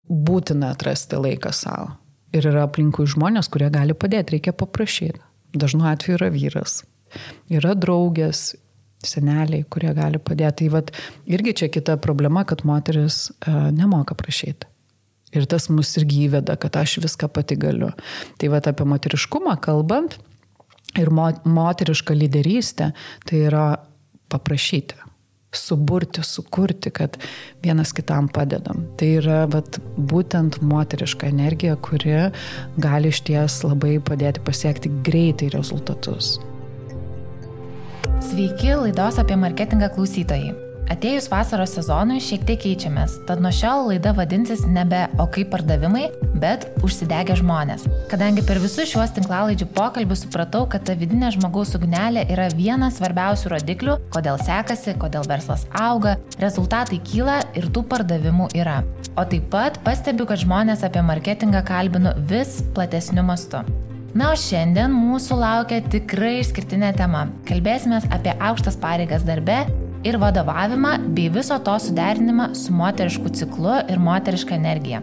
būtina atrasti laiką savo. Ir yra aplinkui žmonės, kurie gali padėti, reikia paprašyti. Dažnu atveju yra vyras, yra draugės, seneliai, kurie gali padėti. Tai vat, irgi čia kita problema, kad moteris nemoka prašyti. Ir tas mus irgi įveda, kad aš viską pati galiu. Tai vat apie moteriškumą kalbant ir moterišką lyderystę, tai yra paprašyti, suburti, sukurti, kad vienas kitam padedam. Tai yra vat, būtent moteriška energija, kuri gali išties labai padėti pasiekti greitai rezultatus. Sveiki, laidos apie marketingą klausytojai. Atėjus vasaros sezonui šiek tiek keičiamės, tad nuo šiol laida vadinsis nebe "O kaip pardavimai", bet "Užsidegę žmonės". Kadangi per visus šiuos tinklalaidžių pokalbius supratau, kad ta vidinė žmogaus ugnelė yra vienas svarbiausių rodiklių, kodėl sekasi, kodėl verslas auga, rezultatai kyla ir tų pardavimų yra. O taip pat pastebiu, kad žmonės apie marketingą kalbinu vis platesniu mastu. Na, o šiandien mūsų laukia tikrai išskirtinė tema. Kalbėsime apie aukštas pareigas darbe ir vadovavimą bei viso to suderinimą su moterišku ciklu ir moteriška energija.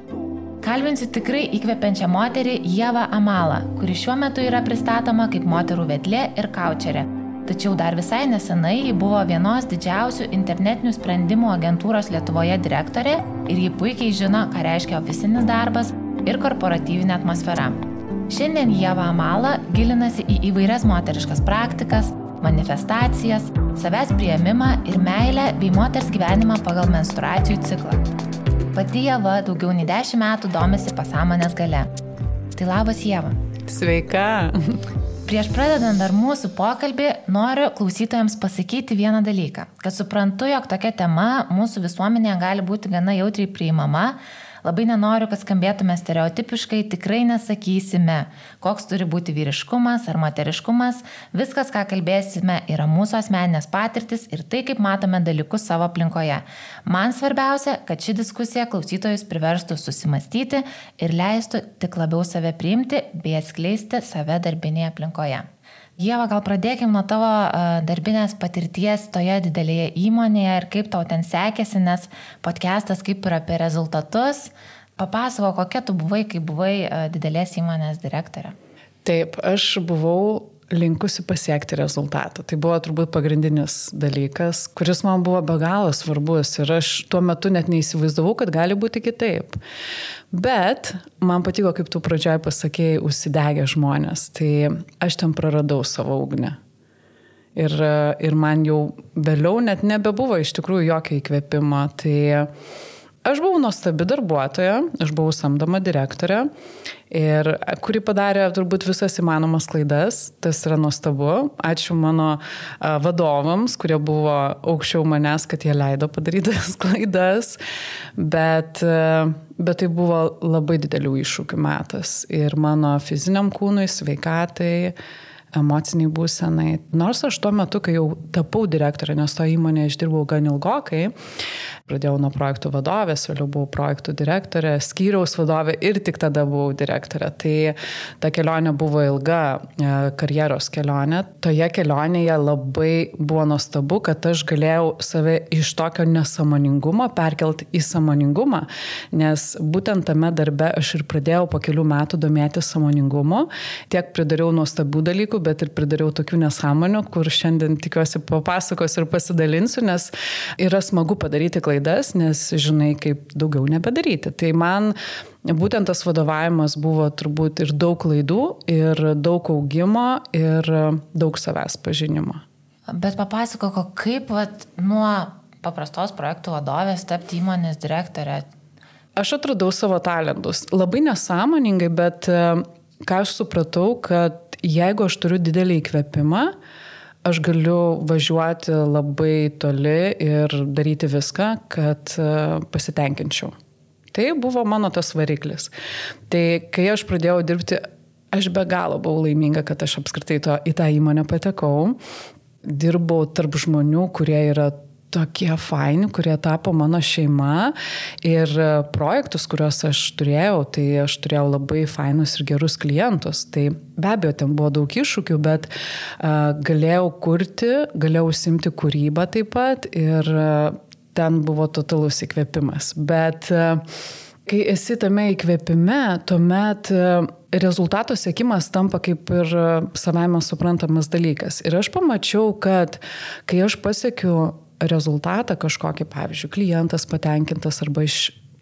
Kalbinsiu tikrai įkvepiančią moterį Ievą Amalą, kuri šiuo metu yra pristatoma kaip moterų vedlė ir kaučerė. Tačiau dar visai nesenai ji buvo vienos didžiausių internetinių sprendimų agentūros Lietuvoje direktorė ir ji puikiai žino, ką reiškia ofisinis darbas ir korporatyvinė atmosfera. Šiandien Ieva Amala gilinasi į įvairias moteriškas praktikas, manifestacijas, savęs priėmimą ir meilę bei moters gyvenimą pagal menstruacijų ciklą. Pati Ieva daugiau nei 10 metų domisi pasąmonės galia. Tai labas, Ieva. Sveika. Prieš pradedant dar mūsų pokalbį, noriu klausytojams pasakyti vieną dalyką, kad suprantu, jog tokia tema mūsų visuomenėje gali būti gana jautriai priimama. Labai nenoriu, kad skambėtume stereotipiškai, tikrai nesakysime, koks turi būti vyriškumas ar moteriškumas. Viskas, ką kalbėsime, yra mūsų asmeninės patirtis ir tai, kaip matome dalykus savo aplinkoje. Man svarbiausia, kad ši diskusija klausytojus priverstų susimastyti ir leistų tik labiau save priimti bei atskleisti save darbinėje aplinkoje. Ieva, gal pradėkim nuo tavo darbinės patirties toje didelėje įmonėje ir kaip tau ten sekėsi, nes podcastas kaip ir apie rezultatus. Papasako, kokia tu buvai, kai buvai didelės įmonės direktorė. Taip, aš buvau linkusi pasiekti rezultatą. Tai buvo turbūt pagrindinis dalykas, kuris man buvo be galo svarbus ir aš tuo metu net neįsivaizdavau, kad gali būti kitaip. Bet man patiko, kaip tu pradžioj pasakėjai, užsidegę žmonės. Tai aš ten praradau savo ugnį. Ir man jau vėliau net nebebuvo iš tikrųjų jokio įkvėpimo. Tai aš buvau nuostabi darbuotoja, aš buvau samdoma direktorė, kuri padarė turbūt visas įmanomas klaidas, tas yra nuostabu. Ačiū mano vadovams, kurie buvo aukščiau manęs, kad jie leido padaryti tas klaidas, bet tai buvo labai didelių iššūkių metas ir mano fiziniam kūnui, sveikatai, emociniai būsenai. Nors aš tuo metu, kai jau tapau direktorė, nes to įmonėje aš dirbau gan ilgokai, pradėjau nuo projektų vadovės, vėliau buvau projektų direktorė, skyriaus vadovė ir tik tada buvau direktorė. Tai ta kelionė buvo ilga karjeros kelionė. Toje kelionėje labai buvo nuostabu, kad aš galėjau save iš tokio nesąmoningumo perkelti į sąmoningumą, nes būtent tame darbe aš ir pradėjau po kelių metų domėtis sąmoningumu. Tiek pridariau nuostabių dalykų, bet ir pridariau tokių nesąmonių, kur šiandien tikiuosi papasakos ir pasidalinsiu, nes yra smagu padaryti klaidas, nes žinai, kaip daugiau nebedaryti. Tai man būtent tas vadovavimas buvo turbūt ir daug klaidų, ir daug augimo, ir daug savęs pažinimo. Bet papasakok, kaip nuo paprastos projektų vadovės tapti įmonės direktorė? Aš atradau savo talentus. Labai nesąmoningai, bet ką aš supratau, kad jeigu aš turiu didelį įkvėpimą, aš galiu važiuoti labai toli ir daryti viską, kad pasitenkinčiau. Tai buvo mano tas variklis. Tai kai aš pradėjau dirbti, aš be galo buvau laiminga, kad aš apskritai į tą įmonę patekau. Dirbau tarp žmonių, kurie yra tokie faini, kurie tapo mano šeima ir projektus, kuriuos aš turėjau, tai aš turėjau labai fainus ir gerus klientus. Tai be abejo, ten buvo daug iššūkių, bet galėjau kurti, galėjau užsiimti kūrybą taip pat ir ten buvo totalus įkvėpimas. Bet Kai esi tame įkvėpime, tuomet rezultato siekimas tampa kaip ir savaime suprantamas dalykas. Ir aš pamačiau, kad kai aš pasiekiu rezultatą kažkokį, pavyzdžiui, klientas patenkintas arba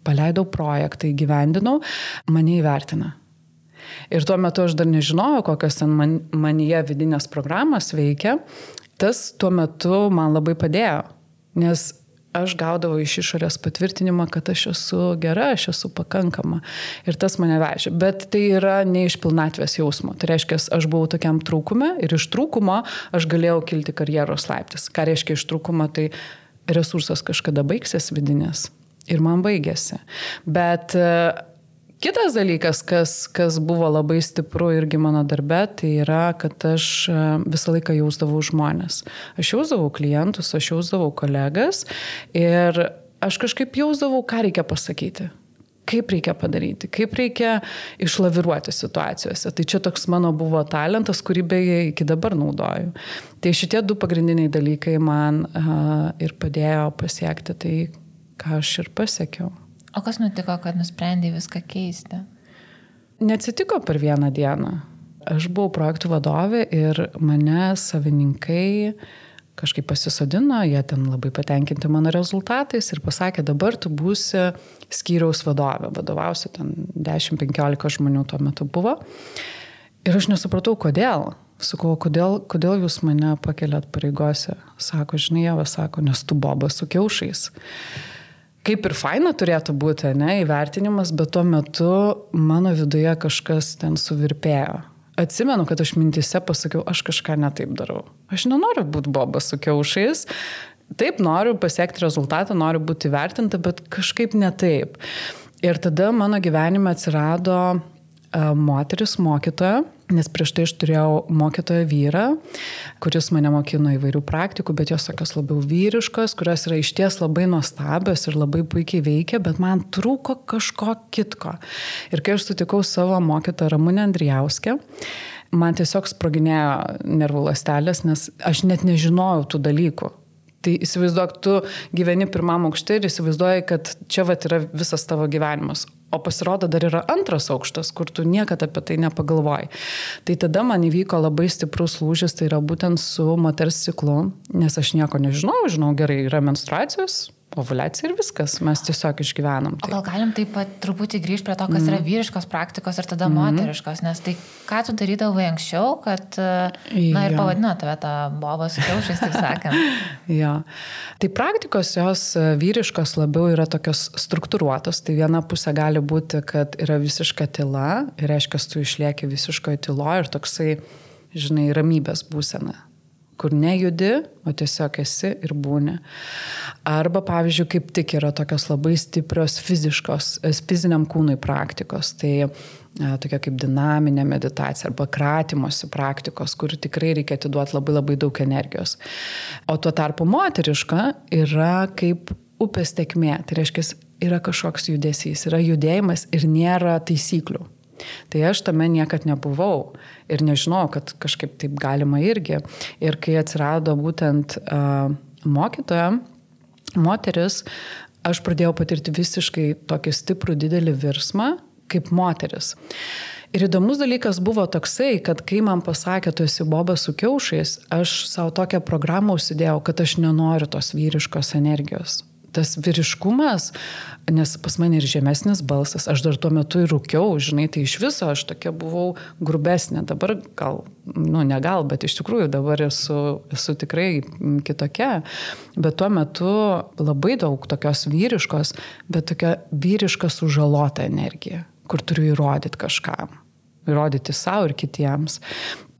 paleidau projektą, įgyvendinau, mane įvertina. Ir tuo metu aš dar nežinojau, kokios ten manyje vidinės programos veikia. Tas tuo metu man labai padėjo, nes aš gaudavau iš išorės patvirtinimą, kad aš esu gera, aš esu pakankama. Ir tas mane vežė. Bet tai yra ne iš pilnatvės jausmo. Tai reiškia, aš buvau tokiam trūkume ir iš trūkumo aš galėjau kilti karjeros laiptais. Ką reiškia iš trūkumo, tai resursas kažkada baigsis vidinės. Ir man baigėsi. Bet kitas dalykas, kas buvo labai stipru irgi mano darbe, tai yra, kad aš visą laiką jausdavau žmonės. Aš jausdavau klientus, aš jausdavau kolegas ir aš kažkaip jausdavau, ką reikia pasakyti, kaip reikia padaryti, kaip reikia išlaviruoti situacijose. Tai čia toks mano buvo talentas, kurį beje iki dabar naudoju. Tai šitie 2 pagrindiniai dalykai man ir padėjo pasiekti tai, ką aš ir pasiekiau. O kas nutiko, kad nusprendė viską keisti? Neatsitiko per vieną dieną. Aš buvau projektų vadovė ir mane savininkai kažkaip pasisodino, jie ten labai patenkinti mano rezultatais ir pasakė, dabar tu būsi skyriaus vadovė, vadovausi ten 10-15 žmonių tuo metu buvo. Ir aš nesupratau, kodėl. Sakau, kodėl jūs mane pakeliat pareigose? Sako, žinai, Ieva, sako, nes tu bobas su kiaušais. Kaip ir faina turėtų būti, ne, įvertinimas, bet tuo metu mano viduje kažkas ten suvirpėjo. Atsimenu, kad aš mintise pasakiau, aš kažką netaip darau. Aš nenoriu būti bobas su kiaušais. Taip, noriu pasiekti rezultatą, noriu būti įvertinta, bet kažkaip netaip. Ir tada mano gyvenime atsirado moteris mokytoja, nes prieš tai aš turėjau mokytoją vyrą, kuris mane mokino įvairių praktikų, bet jos tokios labiau vyriškos, kurios yra išties labai nuostabios ir labai puikiai veikia, bet man trūko kažko kitko. Ir kai aš sutikau savo mokytoją Ramunę Andrijauskę, man tiesiog sproginėjo nervų ląstelės, nes aš net nežinojau tų dalykų. Tai įsivaizduok, tu gyveni pirmam aukšte ir įsivaizduoji, kad čia vat yra visas tavo gyvenimas. O pasirodo, dar yra antras aukštas, kur tu niekada apie tai nepagalvoji. Tai tada man įvyko labai stiprus lūžis, tai yra būtent su moters ciklu, nes aš nieko žinau gerai, yra menstruacijos, ovuliacija ir viskas, mes tiesiog išgyvenam. O gal galim taip pat truputį grįžti prie to, kas yra vyriškos praktikos ir tada moteriškos, nes tai ką tu darydavai anksčiau, kad, na ir pavadino tave tą bobą su kiaušais, taip sakant. Ja. Tai praktikos jos vyriškos labiau yra tokios struktūruotos, tai viena pusė gali būti, kad yra visiška tyla, ir reiškia, tu išlieki visiškoje tyloje ir toksai, žinai, ramybės būsena, kur nejudi, o tiesiog esi ir būni. Arba, pavyzdžiui, kaip tik yra tokios labai stiprios fiziniam kūnui praktikos, tai tokia kaip dinaminė meditacija arba kratymosi praktikos, kur tikrai reikia atiduoti labai labai daug energijos. O tuo tarpu moteriška yra kaip upės tėkmė, tai reiškia, yra kažkoks judesys, yra judėjimas ir nėra taisyklių. Tai aš tame niekad nebuvau ir nežinau, kad kažkaip taip galima irgi. Ir kai atsirado būtent mokytoja, moteris, aš pradėjau patirti visiškai tokį stiprų didelį virsmą kaip moteris. Ir įdomus dalykas buvo toksai, kad kai man pasakė, tu esi bobas su kiaušais, aš savo tokią programą užsidėjau, kad aš nenoriu tos vyriškos energijos. Tas vyriškumas, nes pas mane ir žemesnis balsas, aš dar tuo metu ir rūkiau, žinai, tai iš viso aš tokia buvau grubesnė, dabar gal, ne gal, bet iš tikrųjų dabar esu tikrai kitokia, bet tuo metu labai daug tokios vyriškos, bet tokia vyriška sužalota energija, kur turiu įrodyti kažkam, įrodyti savo ir kitiems.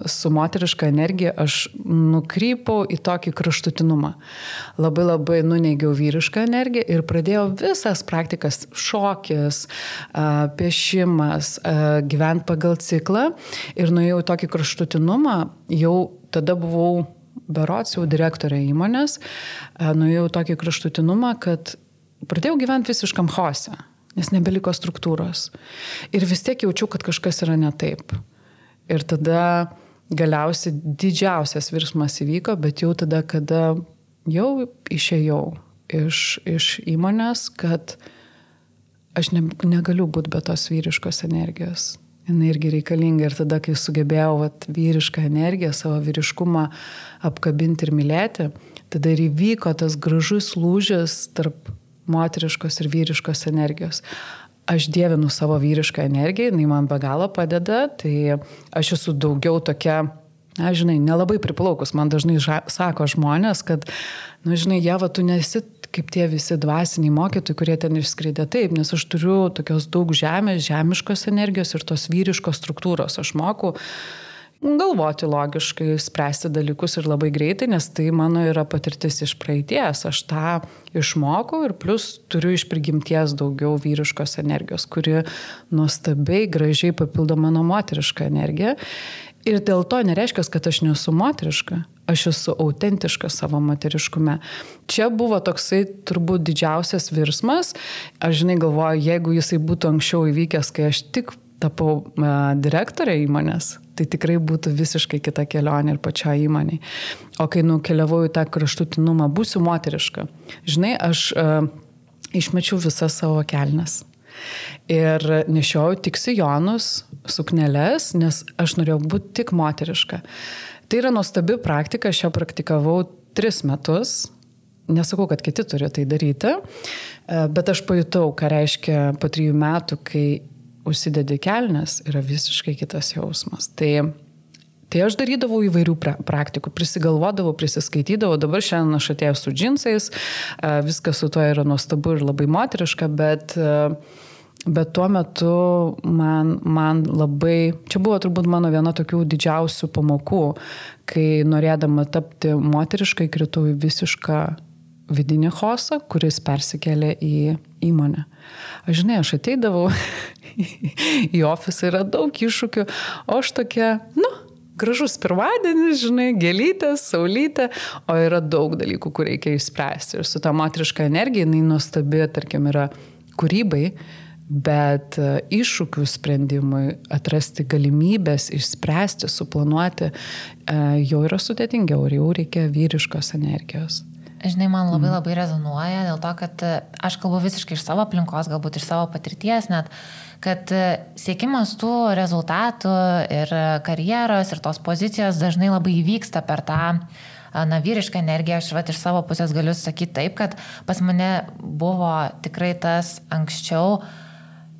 Su moteriška energija aš nukrypau į tokį kraštutinumą. Labai labai nuneigiau vyrišką energiją ir pradėjau visas praktikas, šokis, piešimas, gyventi pagal ciklą ir nuėjau į tokį kraštutinumą, jau tada buvau berods jau direktorė įmonės, nuėjau į tokį kraštutinumą, kad pradėjau gyventi visiškam chaose, nes nebeliko struktūros. Ir vis tiek jaučiau, kad kažkas yra ne taip. Ir tada galiausiai didžiausias virsmas įvyko, bet jau tada, kada jau išėjau iš įmonės, kad aš negaliu būti be tos vyriškos energijos. Jis irgi reikalinga ir tada, kai sugebėjau vyrišką energiją, savo vyriškumą apkabinti ir mylėti, tada ir įvyko tas gražus lūžis tarp moteriškos ir vyriškos energijos. Aš dievinu savo vyrišką energiją, jinai man be galo padeda, tai aš esu daugiau tokia, nelabai priplaukus. Man dažnai sako žmonės, kad, Ieva, tu nesi kaip tie visi dvasiniai mokytojai, kurie ten išskridė. Taip, nes aš turiu tokios daug žemiškos energijos ir tos vyriškos struktūros. Aš moku galvoti logiškai, spręsti dalykus ir labai greitai, nes tai mano yra patirtis iš praeities. Aš tą išmokau ir plus turiu iš prigimties daugiau vyriškos energijos, kuri nuostabiai, gražiai papildo mano moterišką energiją. Ir dėl to nereiškia, kad aš nesu moteriška. Aš esu autentiška savo moteriškume. Čia buvo toksai turbūt didžiausias virsmas. Aš galvoju, jeigu jisai būtų anksčiau įvykęs, kai aš tik tapau direktorė įmonės, tai tikrai būtų visiškai kita kelionė ir pačioje įmonėje. O kai nukeliavau į tą kraštutinumą, būsiu moteriška. Aš išmečiau visas savo kelnes. Ir nešiojau tik sijonus, sukneles, nes aš norėjau būti tik moteriška. Tai yra nuostabi praktika, aš ją praktikavau 3 metus. Nesakau, kad kiti turi tai daryti, bet aš pajutau, ką reiškia po 3 metų, kai užsidedi kelnes, yra visiškai kitas jausmas. Tai aš darydavau įvairių praktikų, prisigalvodavau, prisiskaitydavau, dabar šiandien aš atėjau su džinsais, viskas su to yra nuostabu ir labai moteriška, bet tuo metu man labai, čia buvo turbūt mano viena tokių didžiausių pamokų, kai norėdama tapti moteriškai, kritau į visišką vidinį chaosą, kuris persikėlė į įmonę. Aš ateidavau į ofisą, yra daug iššūkių, o aš tokia, gražus pirmadienis, gėlytės, saulytė, o yra daug dalykų, kur reikia išspręsti. Ir su ta moteriška energija, jinai nuostabi, tarkim, yra kūrybai, bet iššūkių sprendimui, atrasti galimybės, išspręsti, suplanuoti, jau yra sudėtingiau ir jau reikia vyriškos energijos. Man labai rezonuoja dėl to, kad aš kalbu visiškai iš savo aplinkos, galbūt iš savo patirties net, kad siekimas tų rezultatų ir karjeros ir tos pozicijos dažnai labai įvyksta per tą vyrišką energiją. Aš iš savo pusės galiu sakyti taip, kad pas mane buvo tikrai tas anksčiau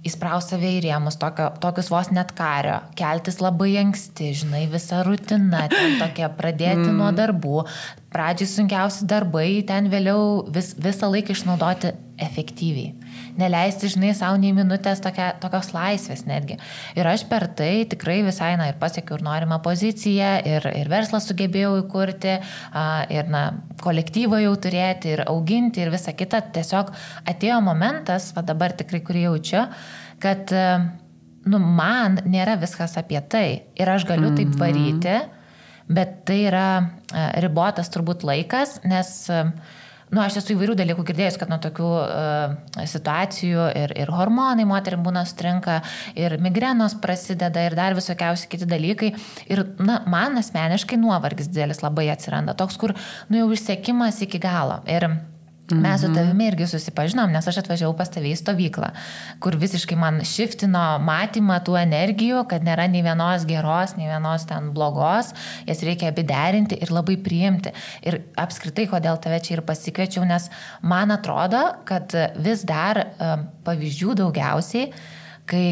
įspraus save į rėmus, tokius vos net kario, keltis labai anksti, visa rutina, ten tokia pradėti nuo darbų, pradžiai sunkiausi darbai, ten vėliau visą laiką išnaudoti efektyviai. Neleisti, savo nei minutės tokios laisvės netgi. Ir aš per tai tikrai visai, ir pasiekiau ir norimą poziciją, ir verslą sugebėjau įkurti, ir kolektyvą jau turėti, ir auginti, ir visa kita. Tiesiog atėjo momentas, dabar tikrai kurį jaučiu, kad man nėra viskas apie tai. Ir aš galiu taip varyti, bet tai yra ribotas turbūt laikas, nes aš esu įvairių dalykų girdėjus, kad nuo tokių situacijų ir hormonai moterim būna sutrinka, ir migrenos prasideda, ir dar visokiausi kiti dalykai. Ir man asmeniškai nuovargis didelis labai atsiranda, toks, kur jau išsekimas iki galo. Ir mes su tavimi irgi susipažinom, nes aš atvažiavau pas tave į stovyklą, kur visiškai man šiftino matymą tų energijų, kad nėra nei vienos geros, nei vienos ten blogos, jas reikia abi derinti ir labai priimti. Ir apskritai, kodėl tave čia ir pasikviečiau, nes man atrodo, kad vis dar pavyzdžių daugiausiai, kai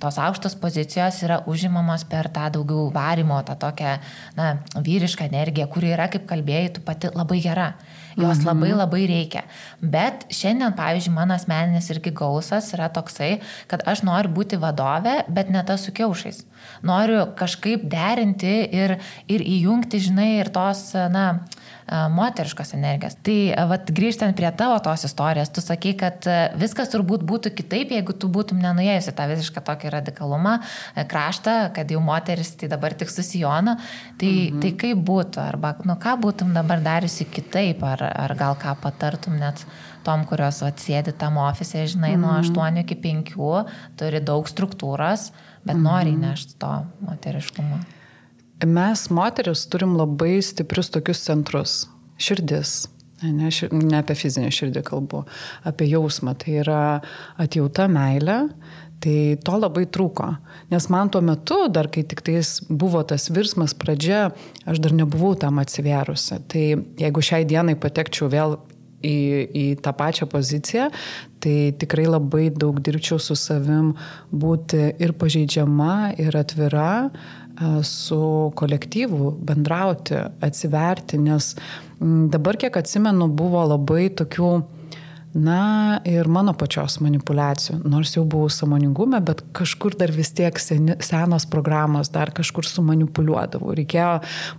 tos aukštos pozicijos yra užimamos per tą daugiau varimo, tą tokią vyrišką energiją, kuri yra, kaip kalbėjai, tu pati labai gera. Jos labai reikia. Bet šiandien, pavyzdžiui, mano asmeninis irgi gausas yra toksai, kad aš noriu būti vadovė, bet ne tas su kiaušais. Noriu kažkaip derinti ir įjungti, ir tos, moteriškos energijos. Tai grįžtant prie tavo tos istorijos, tu sakai, kad viskas turbūt būtų kitaip, jeigu tu būtum nenuėjusi tą visišką tokį radikalumą, kraštą, kad jau moteris tai dabar tik su sijonu. Tai kaip būtų? Arba ką būtum dabar dariusi kitaip? Ar gal ką patartum net tom, kurios sėdi tam ofise, nuo 8 iki 5, turi daug struktūros, bet nori įnešti to moteriškumo. Mes moteris turim labai stiprius tokius centrus. Širdis, Ne apie fizinę širdį kalbu, apie jausmą. Tai yra atjauta, meilė. Tai to labai trūko. Nes man tuo metu, dar kai tik tais buvo tas virsmas pradžia, aš dar nebuvau tam atsivėrusi. Tai jeigu šiai dienai patekčiau vėl į tą pačią poziciją, tai tikrai labai daug dirbčiau su savim būti ir pažeidžiama, ir atvira, su kolektyvu, bendrauti, atsiverti, nes dabar, kiek atsimenu, buvo labai tokių, ir mano pačios manipulacijų, nors jau buvau sąmoningume, bet kažkur dar vis tiek senos programos dar kažkur sumanipuliuodavau.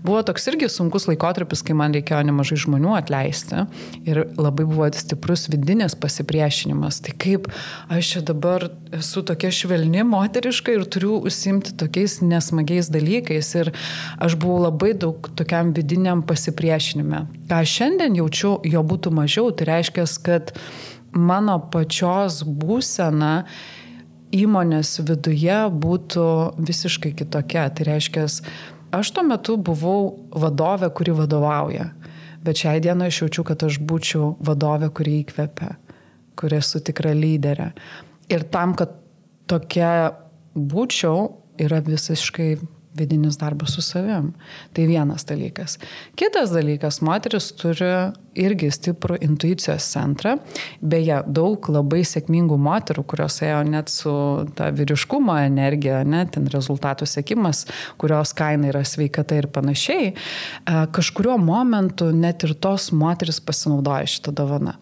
Buvo toks irgi sunkus laikotarpis, kai man reikėjo nemažai žmonių atleisti ir labai buvo stiprus vidinis pasipriešinimas. Tai kaip aš čia dabar esu tokia švelni, moteriška ir turiu užsiimti tokiais nesmagiais dalykais ir aš buvau labai daug tokiam vidiniam pasipriešinime. Ką šiandien jaučiu, jo būtų mažiau, tai reiškia, kad mano pačios būsena įmonės viduje būtų visiškai kitokia. Tai reiškia, aš tuo metu buvau vadovė, kuri vadovauja, bet šiai dienai aš jaučiu, kad aš būčiau vadovė, kuri įkvepia, kuri esu tikra lyderė. Ir tam, kad tokia būčiau, yra visiškai vidinis darbas su savim. Tai vienas dalykas. Kitas dalykas, moteris turi irgi stiprų intuicijos centrą. Beje, daug labai sėkmingų moterų, kurios ėjo net su ta vyriškumo energija, ten rezultatų siekimas, kurios kaina yra sveikata ir panašiai, kažkuriuo momentu net ir tos moteris pasinaudoja šitą dovaną.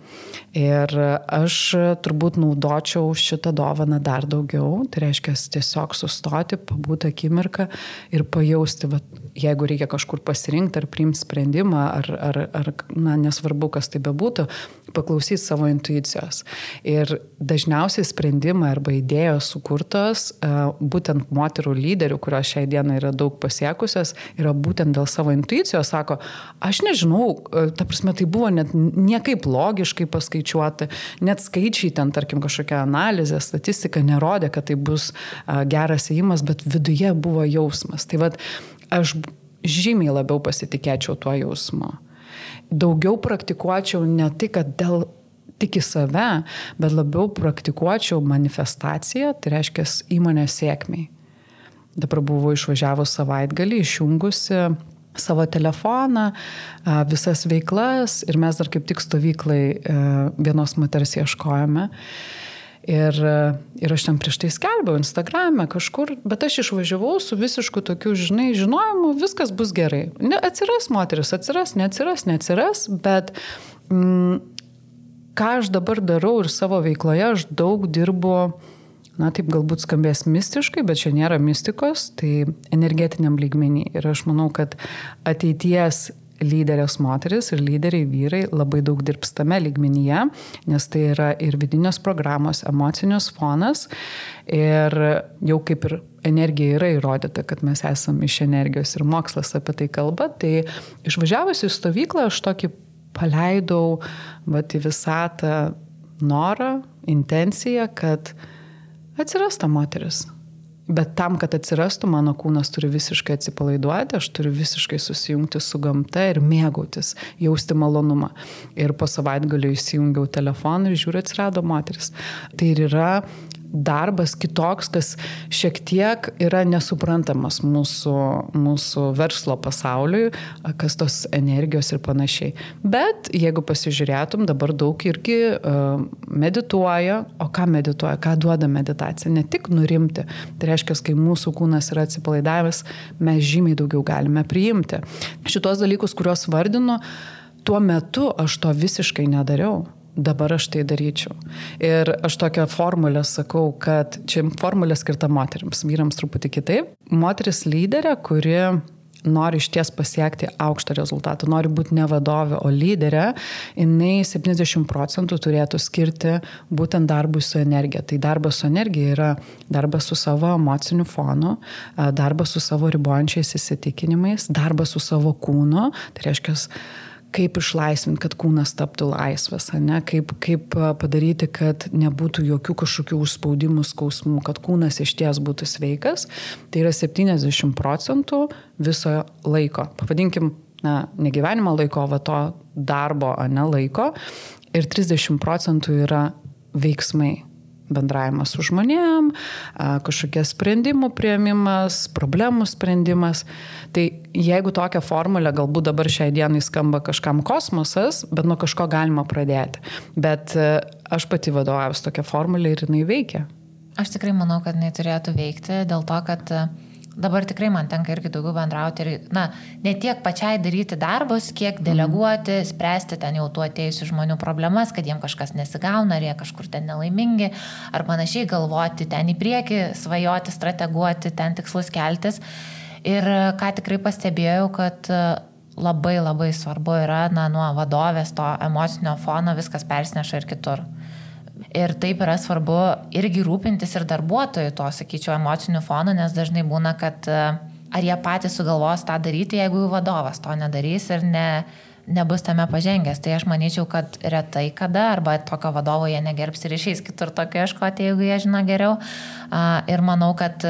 Ir aš turbūt naudočiau šitą dovaną dar daugiau. Tai reiškia tiesiog sustoti, pabūti akimirką ir pajausti, jeigu reikia kažkur pasirinkti ar priimti sprendimą, ar nesvarbu, kas tai bebūtų, paklausyti savo intuicijos. Ir dažniausiai sprendimai arba idėjos sukurtos būtent moterų lyderių, kurios šiai dienai yra daug pasiekusios, yra būtent dėl savo intuicijos. Sako, aš nežinau, ta prasme, tai buvo net niekaip logiškai paskaičiuoti, net skaičiai ten, tarkim, kažkokia analizė, statistika nerodė, kad tai bus geras ėjimas, bet viduje buvo jausmas. Tai aš žymiai labiau pasitikėčiau tuo jausmu. Daugiau praktikuočiau ne tai, kad tik į save, bet labiau praktikuočiau manifestaciją, tai reiškia įmonės sėkmiai. Dabar buvau išvažiavus savaitgalį, išjungusi savo telefoną, visas veiklas ir mes dar kaip tik stovyklai vienos moters ieškojame. Ir aš ten prieš tai skelbiau Instagrame kažkur, bet aš išvažiavau su visišku tokiu, žinojimu, viskas bus gerai. Atsiras moteris, neatsiras, bet ką aš dabar darau ir savo veikloje, aš daug dirbu, taip galbūt skambės mistiškai, bet čia nėra mistikos, tai energetiniam lygmenį. Ir aš manau, kad ateities lyderės moteris ir lyderiai vyrai labai daug dirbs tame lygmenyje, nes tai yra ir vidinės programos, emocinis fonas ir jau kaip ir energija yra įrodyta, kad mes esame iš energijos ir mokslas apie tai kalba, tai išvažiavusi į stovyklą aš tokį paleidau į visatą norą, intenciją, kad atsiras ta moteris. Bet tam, kad atsirastų, mano kūnas turi visiškai atsipalaiduoti, aš turiu visiškai susijungti su gamta ir mėgautis, jausti malonumą. Ir po savaitgalio įsijungiau telefoną ir žiūriu, atsirado moteris. Tai ir yra darbas kitoks, kas šiek tiek yra nesuprantamas mūsų verslo pasauliui, kas tos energijos ir panašiai. Bet jeigu pasižiūrėtum, dabar daug irgi medituoja, o ką medituoja, ką duoda meditacija, ne tik nurimti. Tai reiškia, kai mūsų kūnas yra atsipalaidavęs, mes žymiai daugiau galime priimti. Šitos dalykus, kuriuos vardinu, tuo metu aš to visiškai nedariau. Dabar aš tai daryčiau. Ir aš tokią formulę sakau, kad čia formulė skirta moterims, vyrams truputį kitaip. Moteris lyderė, kuri nori išties pasiekti aukštą rezultatą, nori būti ne vadovė, o lyderė, jinai 70% turėtų skirti būtent darbui su energija. Tai darbas su energija yra darbas su savo emociniu fonu, darbas su savo ribojančiais įsitikinimais, darbas su savo kūnu, tai reiškia, kaip išlaisvinti, kad kūnas taptų laisvas, kaip padaryti, kad nebūtų jokių kažkokių užspaudimų, skausmų, kad kūnas išties būtų sveikas. Tai yra 70% viso laiko. Pavadinkim ne gyvenimo laiko, va to darbo, ne laiko. Ir 30% yra veiksmai. Bendravimas su žmonėm, kažkokie sprendimų priėmimas, problemų sprendimas. Tai jeigu tokią formulę, galbūt dabar šiai dienai skamba kažkam kosmosas, bet nuo kažko galima pradėti. Bet aš pati vadovaujuosi tokią formulę ir jinai veikia. Aš tikrai manau, kad jinai turėtų veikti, dėl to, kad dabar tikrai man tenka irgi daugiau bendrauti ir, ne tiek pačiai daryti darbus, kiek deleguoti, spręsti ten jau tų atėjusių žmonių problemas, kad jiem kažkas nesigauna, ar jie kažkur ten nelaimingi, ar panašiai galvoti ten į priekį, svajoti, strateguoti, ten tikslus keltis. Ir ką tikrai pastebėjau, kad labai labai svarbu yra, nuo vadovės to emocinio fono viskas persineša ir kitur. Ir taip yra svarbu irgi rūpintis ir darbuotojų to, sakyčiau, emocinių fonų, nes dažnai būna, kad ar jie patys sugalvos tą daryti, jeigu jų vadovas to nedarys ir nebus tame pažengęs. Tai aš manyčiau, kad retai kada, arba tokio vadovo jie negerbs ir išeis kitur tokio ieškoti, jeigu jie žino geriau. Ir manau, kad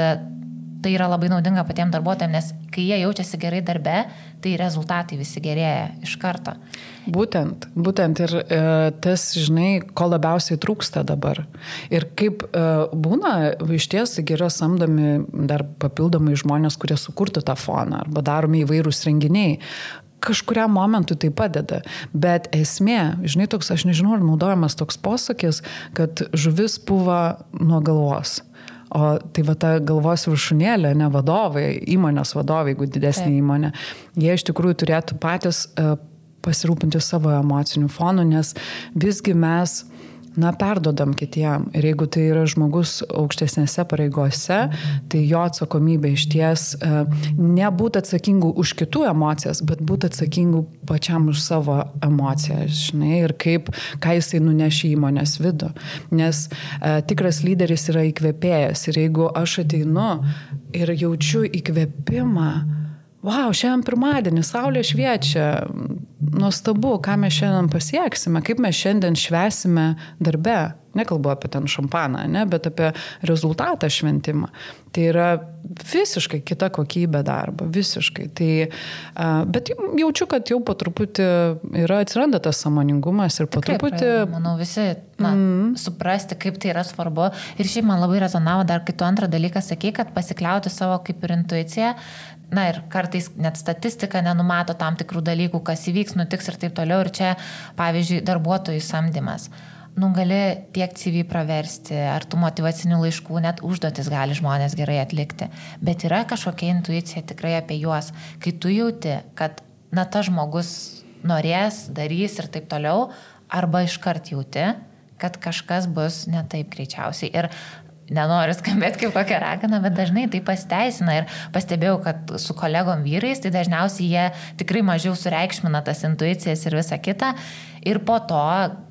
tai yra labai naudinga patiems darbuotojams, nes kai jie jaučiasi gerai darbe, tai rezultatai visi gerėja iš karto. Būtent ir tas, žinai, ko labiausiai trūksta dabar. Ir kaip būna, iš ties yra samdomi dar papildomai žmonės, kurie sukurtų tą foną, arba daromi įvairūs renginiai. Kažkuriam momentui tai padeda, bet esmė, žinai, toks, aš nežinau, ar naudojamas toks posakis, kad žuvis puva nuo galvos. O tai va ta galvos viršūnėlė, ne vadovai, įmonės vadovai, jeigu didesnė įmonė, jie iš tikrųjų turėtų patys pasirūpinti savo emocinių fonų, nes visgi mes perdodam kitiem. Ir jeigu tai yra žmogus aukštesnėse pareigose, tai jo atsakomybė iš ties nebūti atsakingų už kitų emocijas, bet būti atsakingų pačiam už savo emocijas, žinai, ir ką jisai nunešia įmonės vidų. Nes tikras lyderis yra įkvėpėjas. Ir jeigu aš ateinu ir jaučiu įkvėpimą, wow, šiandien pirmadienį, saulė šviečia, nuostabu, ką mes šiandien pasieksime, kaip mes šiandien švęsime darbe. Nekalbu apie ten šampaną, bet apie rezultatą šventimą. Tai yra visiškai kita kokybė darbo, visiškai. Bet jaučiu, kad jau po truputį atsiranda tas sąmoningumas ir po truputį... Manau, visi suprasti, kaip tai yra svarbu. Ir šiaip man labai rezonavo dar kitų antrą dalyką, sakai, kad pasikliauti savo kaip ir intuiciją. Ir kartais net statistika nenumato tam tikrų dalykų, kas įvyks, nutiks ir taip toliau. Ir čia, pavyzdžiui, darbuotojų samdymas. Gali tiek CV praversti, ar tų motyvacinių laiškų, net užduotis gali žmonės gerai atlikti. Bet yra kažkokia intuicija tikrai apie juos. Kai tu jauti, kad tas žmogus norės, darys ir taip toliau, arba iškart jauti, kad kažkas bus ne taip greičiausiai. Ir nenoriu skambėti kaip kokia ragana, bet dažnai tai pasiteisina. Ir pastebėjau, kad su kolegom vyrais, tai dažniausiai jie tikrai mažiau sureikšmina tas intuicijas ir visa kita. Ir po to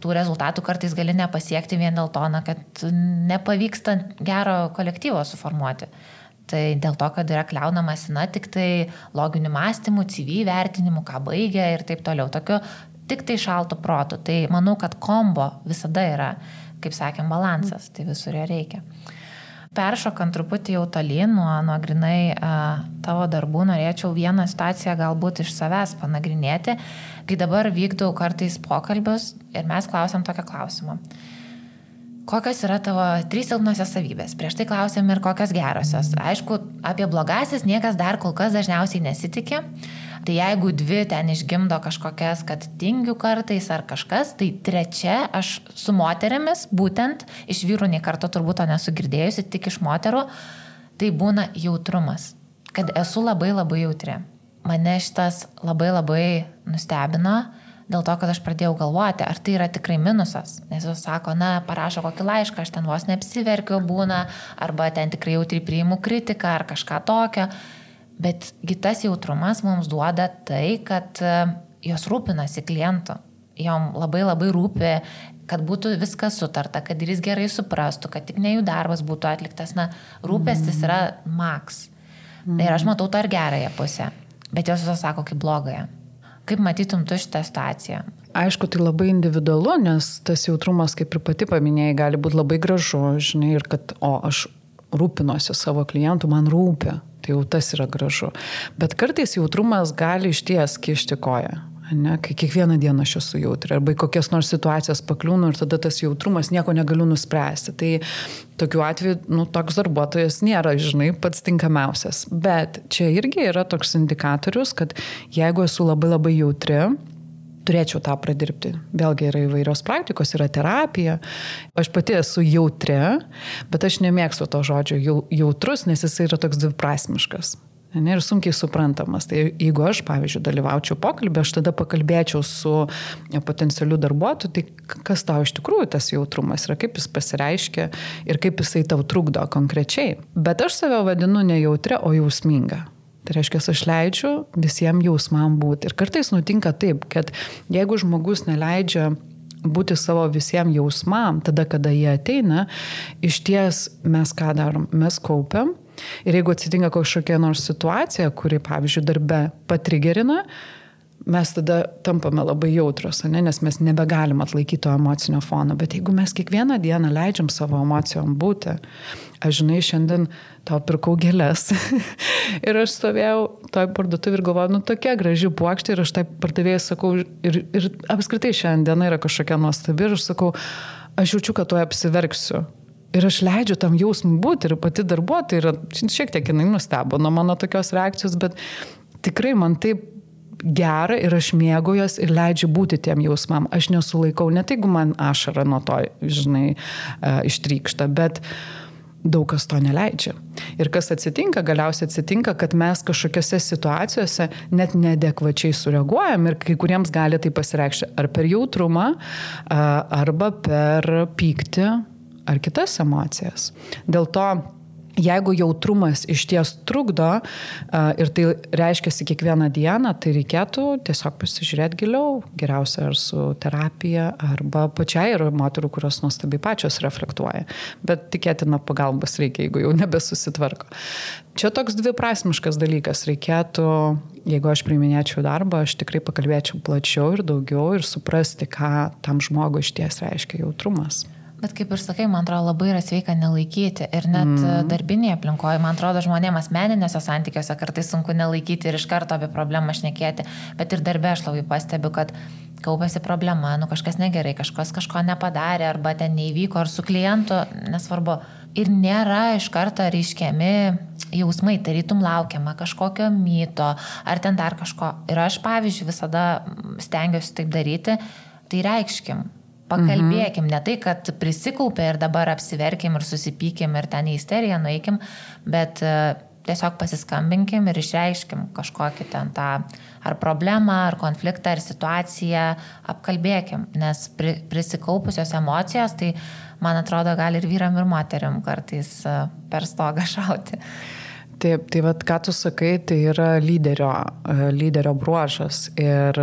tų rezultatų kartais gali nepasiekti vien dėl to, kad nepavyksta gero kolektyvo suformuoti. Tai dėl to, kad yra kliaunamasi, tik tai loginių mąstymų, CV vertinimų, ką baigia ir taip toliau. Tokiu tik tai šaltų protų. Tai manau, kad kombo visada yra, kaip sakėm, balansas. Tai visur jo reikia. Peršokant truputį jau tolyn nuo grinai tavo darbų, norėčiau vieną situaciją galbūt iš savęs panagrinėti, kai dabar vykdau kartais pokalbius ir mes klausiam tokią klausimą. Kokios yra tavo 3 silpnosios savybės? Prieš tai klausėm ir kokios gerosios. Aišku, apie blogasis niekas dar kol kas dažniausiai nesitikė. Tai jeigu 2 ten išgimdo kažkokias, kad tingiu kartais ar kažkas, tai 3 aš su moterimis, būtent iš vyrų nei karto turbūt to nesu girdėjusi, tik iš moterų, tai būna jautrumas. Kad esu labai labai jautri. Mane šitas labai labai nustebino, dėl to, kad aš pradėjau galvoti, ar tai yra tikrai minusas. Nes jis sako, parašo kokį laišką, aš ten vos neapsiverkiu būna, arba ten tikrai jautri priimu kritiką ar kažką tokio. Bet tas jautrumas mums duoda tai, kad jos rūpinasi klientu. Jom labai labai rūpi, kad būtų viskas sutarta, kad ir jis gerai suprastų, kad tik ne jų darbas būtų atliktas. Rūpestis yra maks. Ir aš matau tą ir gerąją pusę. Bet jos visos sako kaip blogąją. Kaip matytum tu šitą situaciją? Aišku, tai labai individualu, nes tas jautrumas, kaip ir pati paminėjai, gali būti labai gražu, žinai, ir kad, aš rūpinosi savo klientų, man rūpi. Tai jau tas yra gražu. Bet kartais jautrumas gali išties kišti koją. Ne, kai kiekvieną dieną aš esu jautri, arba kokias nors situacijas pakliūnu ir tada tas jautrumas nieko negaliu nuspręsti. Tai tokiu atveju, toks darbuotojas nėra, pats tinkamiausias. Bet čia irgi yra toks indikatorius, kad jeigu esu labai labai jautri, turėčiau tą pradirbti. Vėlgi yra įvairios praktikos, yra terapija. Aš pati esu jautri, bet aš nemėgstu to žodžio jautrus, nes jis yra toks dviprasmiškas. Ir sunkiai suprantamas. Tai jeigu aš, pavyzdžiui, dalyvaučiau pokalbį, aš tada pakalbėčiau su potencialiu darbuotoju, tai kas tau iš tikrųjų tas jautrumas yra, kaip jis pasireiškia ir kaip jisai tau trukdo konkrečiai. Bet aš save vadinu ne jautria, o jausminga. Tai reiškia, aš leidžiu visiems jausmam būti. Ir kartais nutinka taip, kad jeigu žmogus neleidžia būti savo visiems jausmam, tada, kada jie ateina, iš ties mes ką darom? Mes kaupiam. Ir jeigu atsitinka kažkokia nors situacija, kuri, pavyzdžiui, darbe patrigerina, mes tada tampame labai jautrus, nes mes nebegalim atlaikyti to emocinio fono. Bet jeigu mes kiekvieną dieną leidžiam savo emocijom būti, aš šiandien tau pirkau gėles ir aš stovėjau toj parduotuvėj ir galvoju, tokia graži puokštė ir aš tai pardavėjai sakau ir apskritai šiandien yra kažkokia nuostabi ir aš sakau, aš jaučiu, kad tuoj apsiverksiu. Ir aš leidžiu tam jausmui būti ir pati darbuotoja yra, šiek tiek jinai nustebo nuo mano tokios reakcijos, bet tikrai man taip gera ir aš mėgaujuos ir leidžiu būti tiem jausmam. Aš nesulaikau, net jeigu man ašara nuo to, ištrykšta, bet daug kas to neleidžia. Ir kas atsitinka, galiausiai atsitinka, kad mes kažkokiose situacijose net neadekvačiai sureaguojam ir kai kuriems gali tai pasireikšti ar per jautrumą, arba per pyktį, ar kitas emocijas. Dėl to, jeigu jautrumas iš ties trukdo ir tai reiškiasi kiekvieną dieną, tai reikėtų tiesiog pasižiūrėti giliau, geriausia ar su terapija, arba pačiai yra moterų, kurios nuostabiai pačios reflektuoja. Bet tikėtina pagalbos reikia, jeigu jau nebesusitvarko. Čia toks dviprasmiškas dalykas. Reikėtų, jeigu aš priiminėčiau darbą, aš tikrai pakalbėčiau plačiau ir daugiau ir suprasti, ką tam žmogui iš ties reiškia jautrumas. Bet kaip ir sakai, man atrodo, labai yra sveika nelaikyti. Ir net darbinėje aplinkoje, man atrodo, žmonėms asmeniniuose santykiuose kartais sunku nelaikyti ir iš karto apie problemą šnekėti. Bet ir darbe aš labai pastebiu, kad kaupėsi problema, kažkas negerai, kažkas kažko nepadarė, arba ten neįvyko, ar su klientu, nesvarbu. Ir nėra iš karto reiškiami jausmai, tarytum laukiama kažkokio myto, ar ten dar kažko. Ir aš, pavyzdžiui, visada stengiuosi taip daryti, tai reikškim. Pakalbėkim, ne tai, kad prisikaupė ir dabar apsiverkim ir susipykim ir ten į isteriją nueikim, bet tiesiog pasiskambinkim ir išreiškim kažkokį ten tą ar problemą, ar konfliktą, ar situaciją, apkalbėkim, nes prisikaupusios emocijos, tai man atrodo, gali ir vyram, ir moteriam kartais per stogą šauti. Taip, tai vat, ką tu sakai, tai yra lyderio bruožas. Ir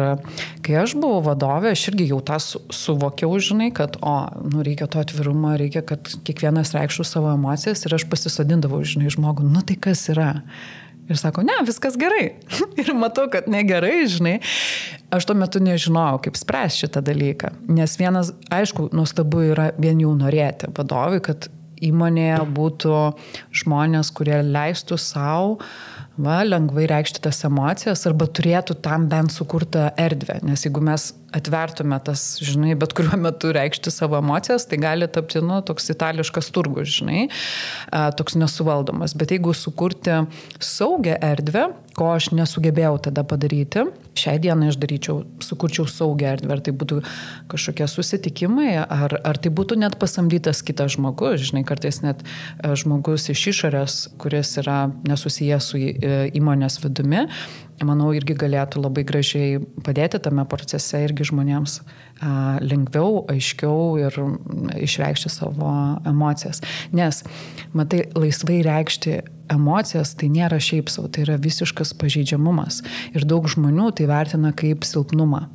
kai aš buvau vadovė, aš irgi jau tą suvokiau, kad reikia to atvirumo, reikia, kad kiekvienas reikštų savo emocijas ir aš pasisodindavau, žmogų, tai kas yra? Ir sako, ne, viskas gerai. Ir matau, kad negerai, Aš tuo metu nežinojau, kaip spręsti šitą dalyką. Nes vienas, aišku, nuostabu yra vien jau norėti vadovui, kad įmonėje būtų žmonės, kurie leistų savo lengvai reikšti tas emocijas arba turėtų tam bent sukurtą erdvę. Nes jeigu mes atvertume tas, bet kuriuo metu reikšti savo emocijas, tai gali tapti, toks itališkas turgus, toks nesuvaldomas. Bet jeigu sukurti saugią erdvę, ko aš nesugebėjau tada padaryti, šiai dienai aš sukurčiau saugią erdvę, ar tai būtų kažkokie susitikimai, ar tai būtų net pasamdytas kitas žmogus, kartais net žmogus iš išorės, kuris yra nesusijęs su įmonės vidumi, manau, irgi galėtų labai gražiai padėti tame procese irgi žmonėms lengviau, aiškiau ir išreikšti savo emocijas. Nes, matai, laisvai reikšti emocijas tai nėra šiaip savo, tai yra visiškas pažeidžiamumas. Ir daug žmonių tai vertina kaip silpnumą.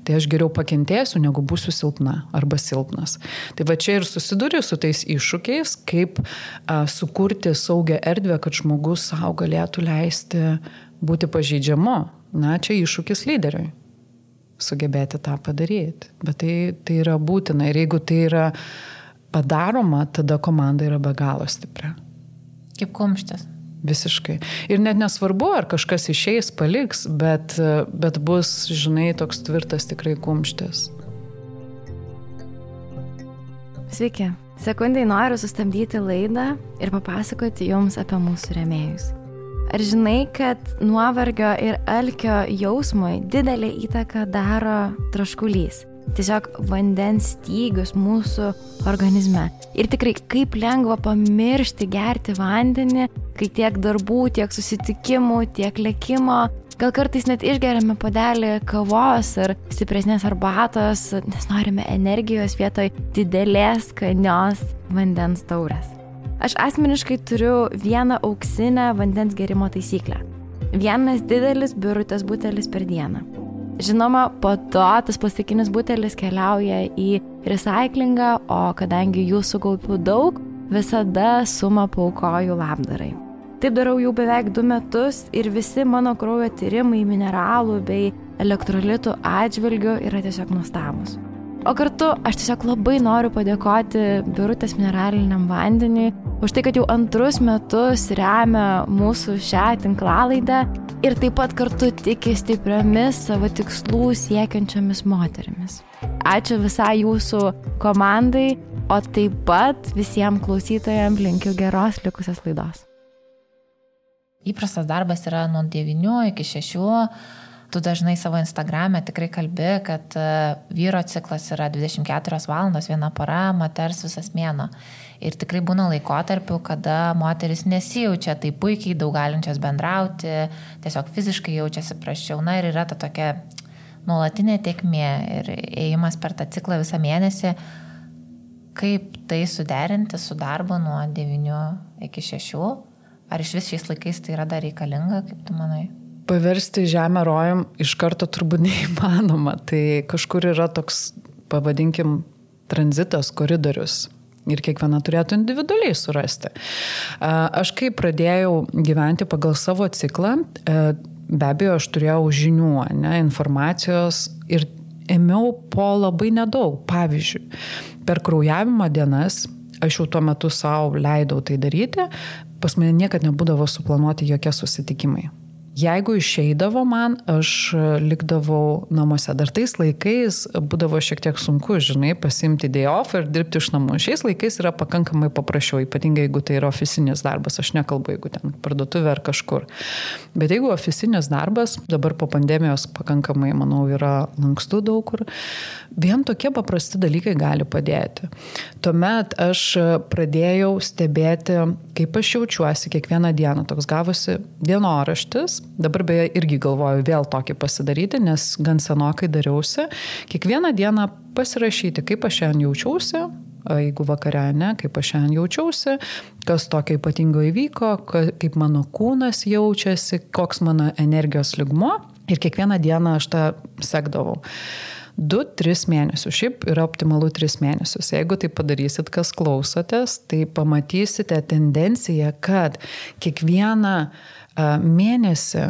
Tai aš geriau pakentėsiu, negu būsiu silpna arba silpnas. Tai va čia ir susiduri su tais iššūkiais, kaip sukurti saugią erdvę, kad žmogus savo galėtų leisti būti pažeidžiamu. Čia iššūkis lyderiui. Sugebėti tą padaryti. Bet tai yra būtina. Ir jeigu tai yra padaroma, tada komanda yra be galo stipri. Kaip kumštis. Visiškai. Ir net nesvarbu, ar kažkas išeis, paliks, bet bus, žinai, toks tvirtas tikrai kumštis. Sveiki. Sekundai noriu sustabdyti laidą ir papasakoti jums apie mūsų rėmėjus. Ar žinai, kad nuovargio ir alkio jausmui didelę įtaką daro troškulys? Tiesiog vandens stygius mūsų organizme. Ir tikrai kaip lengva pamiršti gerti vandenį, kai tiek darbų, tiek susitikimų, tiek lėkimo. Gal kartais net išgeriame puodelį kavos ar stipresnės arbatos, nes norime energijos vietoj didelės skanios vandens taurės. Aš asmeniškai turiu vieną auksinę vandens gerimo taisyklę. Vienas didelis birutės butelis per dieną. Žinoma, po to tas plastikinis butelis keliauja į recyklingą, o kadangi jų sukaupiu daug, visada sumą paaukoju labdarai. Taip darau jau beveik 2 metus ir visi mano kraujo tyrimai mineralų bei elektrolitų atžvilgių yra tiesiog nuostabūs. O kartu aš tiesiog labai noriu padėkoti Birutės mineraliniam vandeniui už tai, kad jau 2 metus remia mūsų šią tinklalaidę ir taip pat kartu tiki stipriomis savo tikslų siekiančiomis moterimis. Ačiū visai jūsų komandai, o taip pat visiems klausytojams linkiu geros likusios laidos. Įprastas darbas yra nuo 9 iki 6. Tu dažnai savo Instagrame tikrai kalbi, kad vyro ciklas yra 24 valandos, 1 para, moters visas mėnuo. Ir tikrai būna laikotarpių, kada moteris nesijaučia taip puikiai, daug galinčios bendrauti, tiesiog fiziškai jaučiasi prasčiau. Na ir yra ta tokia nuolatinė tėkmė ir ėjimas per tą ciklą visą mėnesį. Kaip tai suderinti su darbu nuo 9 iki 6? Ar iš vis šiais laikais tai yra dar reikalinga, kaip tu manai? Paversti žemę rojum iš karto turbūt neįmanoma. Tai kažkur yra toks, pavadinkim, tranzitas, koridorius. Ir kiekviena turėtų individualiai surasti. Aš kai pradėjau gyventi pagal savo ciklą, be abejo, aš turėjau žinių, informacijos ir ėmiau po labai nedaug. Pavyzdžiui, per kraujavimo dienas, aš jau tuo metu savo leidau tai daryti, pas mane niekad nebūdavo suplanuoti jokie susitikimai. Jeigu išeidavo man, aš likdavau namuose. Dar tais laikais būdavo šiek tiek sunku, žinai, pasiimti day off ir dirbti iš namų. Šiais laikais yra pakankamai paprasčiau, ypatingai jeigu tai yra ofisinis darbas. Aš nekalbu, jeigu ten parduotuvė ar kažkur. Bet jeigu ofisinis darbas, dabar po pandemijos pakankamai, manau, yra lankstų daug kur, vien tokie paprasti dalykai gali padėti. Tuomet aš pradėjau stebėti, kaip aš jaučiuosi kiekvieną dieną. Toks gavosi dienoraštis. Dabar beje irgi galvoju vėl tokį pasidaryti, nes gan senokai dariausi. Kiekvieną dieną pasirašyti, kaip aš šiandien jaučiausi, jeigu vakare, kaip aš šiandien jaučiausi, kas tokio ypatingo įvyko, kaip mano kūnas jaučiasi, koks mano energijos lygmuo. Ir kiekvieną dieną aš tą sekdavau. 2-3 mėnesius. Šiaip yra optimalu 3 mėnesius. Jeigu tai padarysit, kas klausotės, tai pamatysite tendenciją, kad kiekvieną mėnesį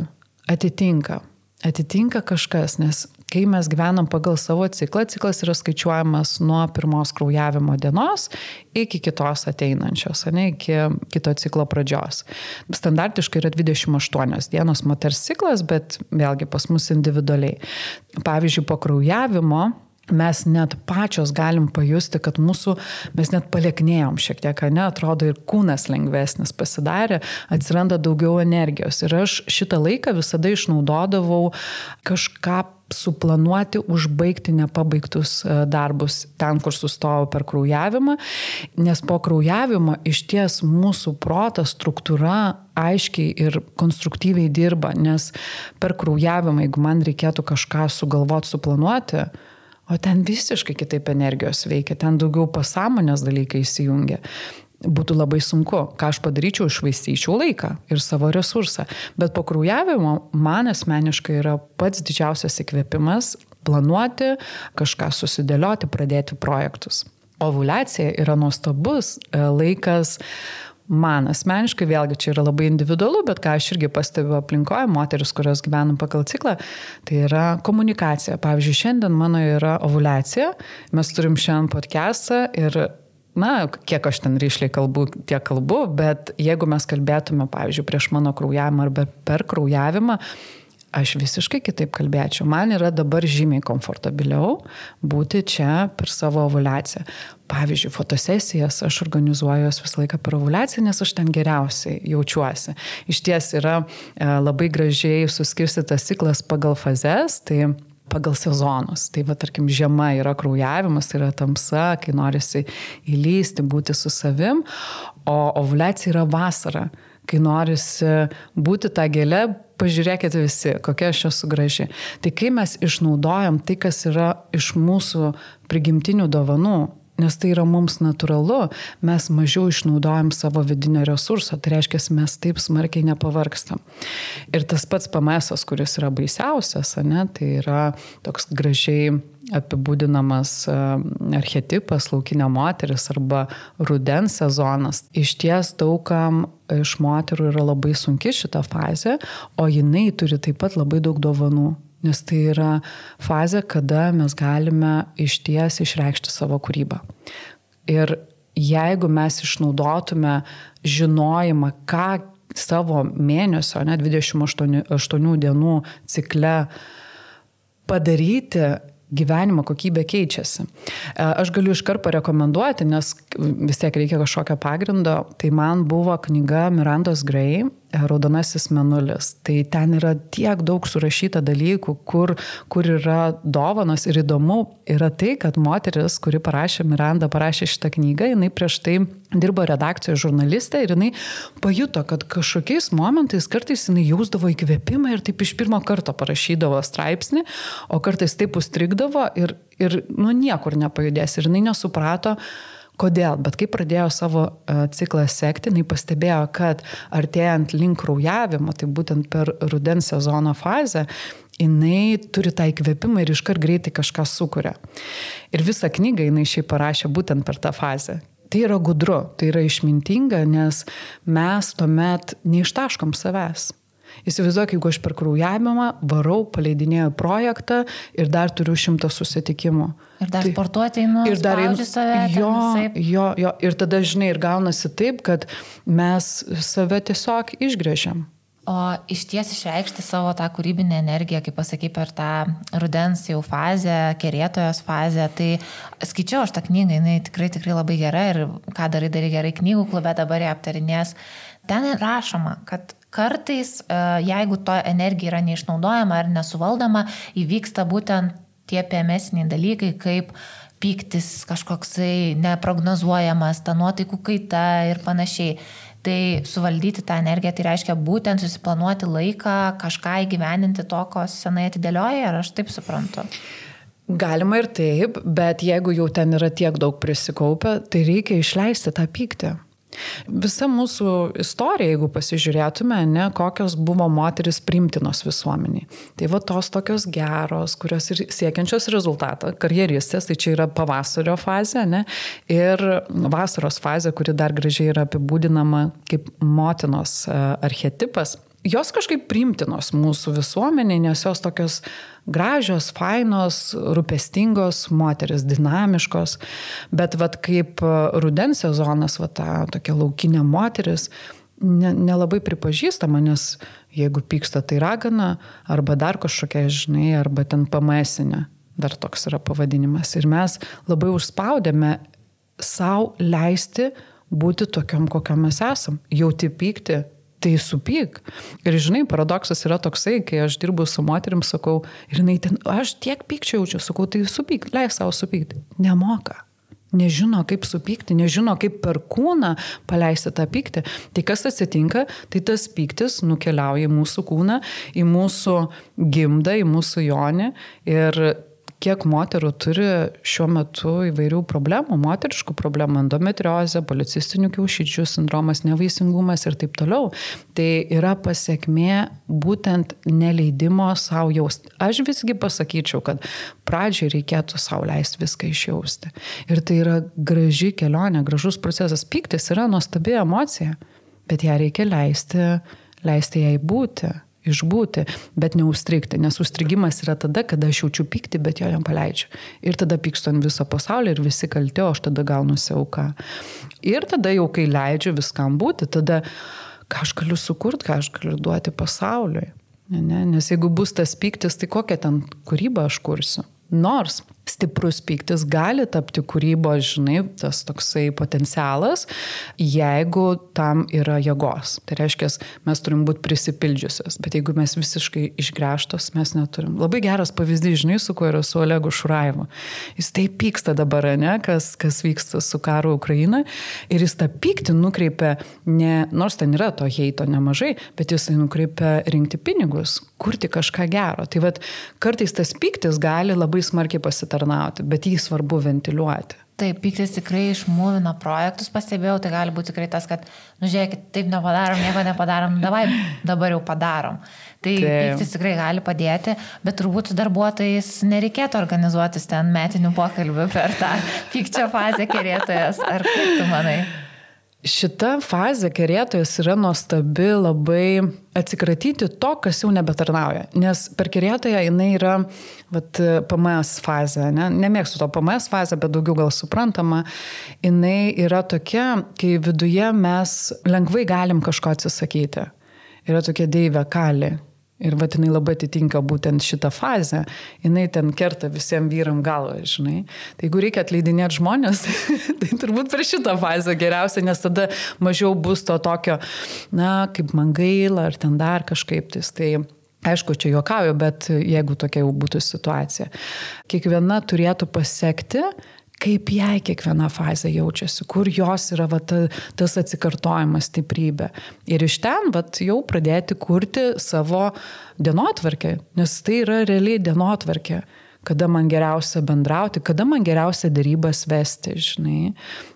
atitinka kažkas, nes kai mes gyvenam pagal savo ciklą, ciklas yra skaičiuojamas nuo 1 kraujavimo dienos iki kitos ateinančios, iki kito ciklo pradžios. Standartiškai yra 28 dienos moters ciklas, bet vėlgi pas mus individualiai. Pavyzdžiui, po kraujavimo mes net pačios galim pajusti, kad mes net palieknėjom šiek tiek, atrodo ir kūnas lengvesnis pasidarė, atsiranda daugiau energijos. Ir aš šitą laiką visada išnaudodavau kažką suplanuoti, užbaigti nepabaigtus darbus ten, kur sustojau per kraujavimą, nes po kraujavimo išties mūsų proto struktūra aiškiai ir konstruktyviai dirba, nes per kraujavimą, jeigu man reikėtų kažką sugalvoti, suplanuoti, o ten visiškai kitaip energijos veikia, ten daugiau pasąmonės dalykai įsijungia. Būtų labai sunku, ką aš padaryčiau, išvaistyčiau laiką ir savo resursą. Bet po kraujavimo man asmeniškai yra pats didžiausias įkvėpimas planuoti, kažką susidėlioti, pradėti projektus. Ovuliacija yra nuostabus laikas. Man asmeniškai, vėlgi čia yra labai individualu, bet ką aš irgi pastebiu aplinkoje, moteris, kurios gyvenam pagal ciklą, tai yra komunikacija. Pavyzdžiui, šiandien mano yra ovuliacija, mes turim šiandien podcastą ir kiek aš ten ryšliai kalbu, tiek kalbu, bet jeigu mes kalbėtume, pavyzdžiui, prieš mano kraujavimą arba per kraujavimą, aš visiškai kitaip kalbėčiau. Man yra dabar žymiai komfortabiliau būti čia per savo ovuliaciją. Pavyzdžiui, fotosesijas aš organizuoju visą laiką per ovuliaciją, nes aš ten geriausiai jaučiuosi. Iš ties yra labai gražiai suskirstytas ciklas pagal fazes, tai pagal sezonus. Tai tarkim, žiema yra kraujavimas, yra tamsa, kai norisi įlysti, būti su savim, o ovuliacija yra vasara, kai norisi būti tą gėlę, pažiūrėkite visi, kokia aš esu graži. Tai kai mes išnaudojam tai, kas yra iš mūsų prigimtinių dovanų, nes tai yra mums natūralu, mes mažiau išnaudojam savo vidinio resurso, tai reiškia, mes taip smarkiai nepavargstam. Ir tas pats PMS, kuris yra baisiausias, tai yra toks gražiai apibūdinamas archetipas, laukinė moteris arba rudens sezonas. Iš ties daugam iš moterų yra labai sunki šita fazė, o jinai turi taip pat labai daug dovanų. Nes tai yra fazė, kada mes galime išties išreikšti savo kūrybą. Ir jeigu mes išnaudotume žinojimą, ką savo mėnesio, 28 dienų cikle padaryti, gyvenimo kokybė keičiasi. Aš galiu iškart parekomenduoti, nes vis tiek reikia kažkokio pagrindo. Tai man buvo knyga Mirandos Gray, Raudonasis mėnulis. Tai ten yra tiek daug surašyta dalykų, kur yra dovanos, ir įdomu yra tai, kad moteris, kuri Miranda parašė šitą knygą, jinai prieš tai dirbo redakcijoje žurnalistė ir jinai pajuto, kad kažkokiais momentais kartais jinai jausdavo įkvėpimą ir taip iš pirmo karto parašydavo straipsnį, o kartais taip užstrigdavo ir niekur nepajudės. Ir jinai nesuprato, kodėl, bet kai pradėjo savo ciklą sekti, jinai pastebėjo, kad artėjant link kraujavimo, tai būtent per rudens sezono fazę, jinai turi tą įkvėpimą ir iškart greitai kažką sukuria. Ir visą knygą jinai šiaip parašė būtent per tą fazę. Tai yra gudru, tai yra išmintinga, nes mes tuomet neištaškom savęs. Įsivaizduok, jeigu aš per kraujavimą varau, paleidinėjau projektą ir dar turiu 100 susitikimų. Ir dar sportuoti einu, spaudžiu save. Jo. Ir tada, žinai, ir gaunasi taip, kad mes save tiesiog išgrėžiam. O iš ties išreikšti savo tą kūrybinę energiją, kaip pasakai, per tą rudens jau fazę, kerėtojos fazę, tai skaičiau aš tą knygą, jinai tikrai labai gera ir ką darai gerai knygų klube, dabar ją aptarinės. Ten rašoma, kad kartais, jeigu to energija yra neišnaudojama ar nesuvaldoma, įvyksta būtent tie PMS-iniai dalykai, kaip pyktis kažkoksai neprognozuojamas, ta nuotaikų kaita ir panašiai. Tai suvaldyti tą energiją, tai reiškia būtent susiplanuoti laiką, kažką įgyveninti to, ko senai atidėlioja, ar aš taip suprantu? Galima ir taip, bet jeigu jau ten yra tiek daug prisikaupę, tai reikia išleisti tą pyktį. Visa mūsų istorija, jeigu pasižiūrėtume, kokios buvo moteris priimtinos visuomeniai. Tai tos tokios geros, kurios ir siekiančios rezultatą, karjeristės, tai čia yra pavasario fazė, ir vasaros fazė, kuri dar gražiai yra apibūdinama kaip motinos archetipas. Jos kažkaip priimtinos mūsų visuomeniai, nes jos tokios gražios, fainos, rūpestingos moteris, dinamiškos, bet kaip rudens sezonas, ta tokia laukinė moteris, nelabai pripažįstama, nes jeigu pyksta, tai ragana, arba dar kažkokia, žinai, arba ten PMS-inė, dar toks yra pavadinimas. Ir mes labai užspaudėme savo leisti būti tokiom, kokiam mes esam, jauti pykti. Tai supyk. Ir žinai, paradoksas yra toksai, kai aš dirbu su moterim, sakau, ir jinai ten, aš tiek pykčio jaučiu, sakau, tai supyk, leis savo supykti. Nemoka. Nežino, kaip supykti, nežino, kaip per kūną paleisti tą pyktį. Tai kas atsitinka, tai tas pyktis nukeliauja į mūsų kūną, į mūsų gimdą, į mūsų jonį. Ir kiek moterų turi šiuo metu įvairių problemų, moteriškų problemų, endometriozė, policistinių kiaušidžių sindromas, nevaisingumas ir taip toliau. Tai yra pasiekmė būtent neleidimo savo jausti. Aš visgi pasakyčiau, kad pradžiai reikėtų savo leisti viską išjausti. Ir tai yra graži kelionė, gražus procesas. Pyktis yra nuostabi emocija, bet ją reikia leisti jai būti. išbūti, bet neužstrigti, nes užstrigimas yra tada, kada aš jaučiu pyktį, bet jo nepaleidžiu. Ir tada pykstu ant viso pasaulio ir visi kalti, o aš tada gaunuosi auka. Ir tada jau, kai leidžiu viskam būti, tada ką aš galiu sukurti, ką aš galiu duoti pasauliui. Ne? Nes jeigu bus tas pyktis, tai kokią ten kūrybą aš kursiu. Nors stiprus pyktis gali tapti kūrybos, žinai, tas toksai potencialas, jeigu tam yra jėgos. Tai reiškia, mes turim būti prisipildžiusios, bet jeigu mes visiškai išgręžtos, mes neturim. Labai geras pavyzdys, žinai, su kuo yra su Olegu Šurajevu. Jis taip pyksta dabar, ne, kas vyksta su karu Ukraina, ir jis tą pyktį nukreipia, nors ten yra to heito nemažai, bet jisai nukreipia rinkti pinigus, kurti kažką gero. Tai vat, kartais tas pyktis gali labai smarkiai pasitarnauti, bet jį svarbu ventiliuoti. Taip, pyktis tikrai išmūvina projektus, pastebėjau, tai gali būti tikrai tas, kad, žiūrėkit, taip nepadarom, nieko nepadarom, dabar jau padarom. Tai pyktis tikrai gali padėti, bet turbūt su darbuotojais nereikėtų organizuotis ten metinių pokalbių per tą pykčio fazę kerėtojas. Ar kaip tu manai? Šita fazė kerėtojas yra nuostabi labai atsikratyti to, kas jau nebetarnauja. Nes per kerėtoją jinai yra PMS fazė. Nemėgstu to PMS fazę, bet daugiau gal suprantama. Jinai yra tokia, kai viduje mes lengvai galim kažko atsisakyti. Yra tokia deivė kali. Ir jinai labai atitinka būtent šitą fazę. Jinai ten kerta visiems vyram galvą, žinai. Tai jeigu reikia atleidinėti žmonės, tai turbūt per šitą fazę geriausia, nes tada mažiau bus to tokio, kaip man gaila, ar ten dar kažkaip. Tai aišku, čia juokauju, bet jeigu tokia jau būtų situacija. Kiekviena turėtų pasiekti, kaip jai kiekviena fazė jaučiasi, kur jos yra tas atsikartojimas, stiprybė. Ir iš ten jau pradėti kurti savo dienotvarkę, nes tai yra realiai dienotvarkė. Kada man geriausia bendrauti, kada man geriausia dėrybas vesti, žinai.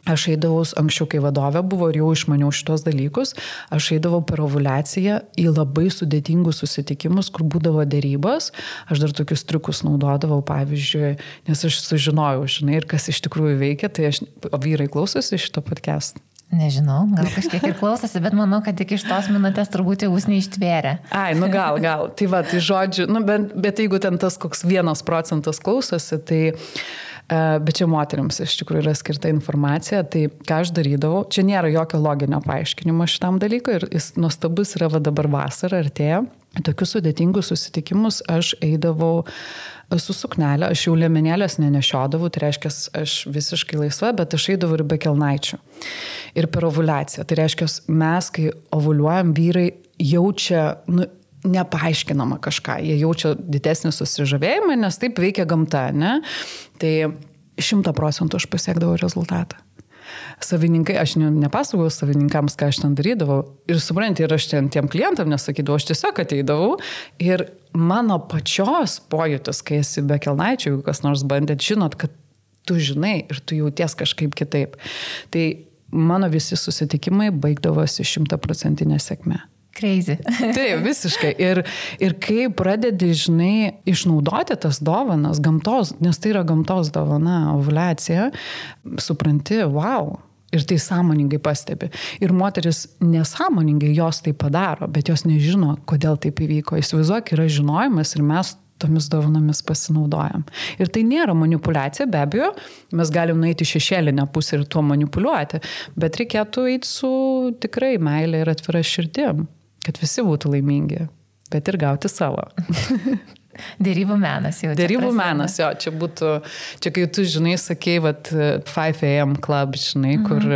Aš eidavau, anksčiau kai vadovė buvo ir jau išmaniau šitos dalykus, aš eidavau per ovuliaciją į labai sudėtingus susitikimus, kur būdavo dėrybos. Aš dar tokius triukus naudodavau, pavyzdžiui, nes aš sužinojau, žinai, ir kas iš tikrųjų veikia, tai o vyrai klausosi šito podcast. Nežinau, gal kažkiek ir klausosi, bet manau, kad tik iš tos minutės turbūt jau jūs neištvėrė. Ai, gal. Tai tai žodžiu, bet jeigu ten tas koks 1% klausosi, tai, bet čia moteriams iš tikrųjų yra skirta informacija, tai ką aš darydavau, čia nėra jokio loginio paaiškinimo šitam dalykui ir jis nuostabus yra dabar vasara artėja. Tokius sudėtingus susitikimus aš eidavau su suknelė, aš jau liemenėlės nenešiodavau, tai reiškia, aš visiškai laisva, bet aš eidavau ir be kelnaičių. Ir per ovuliaciją. Tai reiškia, mes, kai ovuliuojam, vyrai jaučia, nepaaiškinama kažką. Jie jaučia didesnį susižavėjimą, nes taip veikia gamta, ne? Tai 100% aš pasiekdavau rezultatą. Savininkai, aš nepasakojau savininkams, ką aš ten darydavau. Ir supranti, ir aš tiem klientam nesakydavau, aš tiesiog ateidavau. Ir mano pačios pojūtis, kai esi be kelnaičių, jeigu kas nors bandėt, žinot, kad tu žinai ir tu jauties kažkaip kitaip. Tai mano visi susitikimai baigdavosi 100% sėkme. Crazy. Taip, visiškai. Ir kai pradedi, žinai, išnaudoti tas dovanas, gamtos, nes tai yra gamtos dovana, ovuliacija, supranti, wow. Ir tai sąmoningai pastebi. Ir moteris nesąmoningai jos tai padaro, bet jos nežino, kodėl taip įvyko. Įsivaizduok, yra žinojimas ir mes tomis dovanomis pasinaudojam. Ir tai nėra manipulacija, be abejo, mes galim nueiti šešėlinę pusę ir tuo manipuliuoti, bet reikėtų eiti su tikrai meilė ir atvira širdim, kad visi būtų laimingi, bet ir gauti savo. Dėrybų menas jau. Dėrybų menas, jo, čia kai tu, žinai, sakei, 5 AM club, žinai, kur,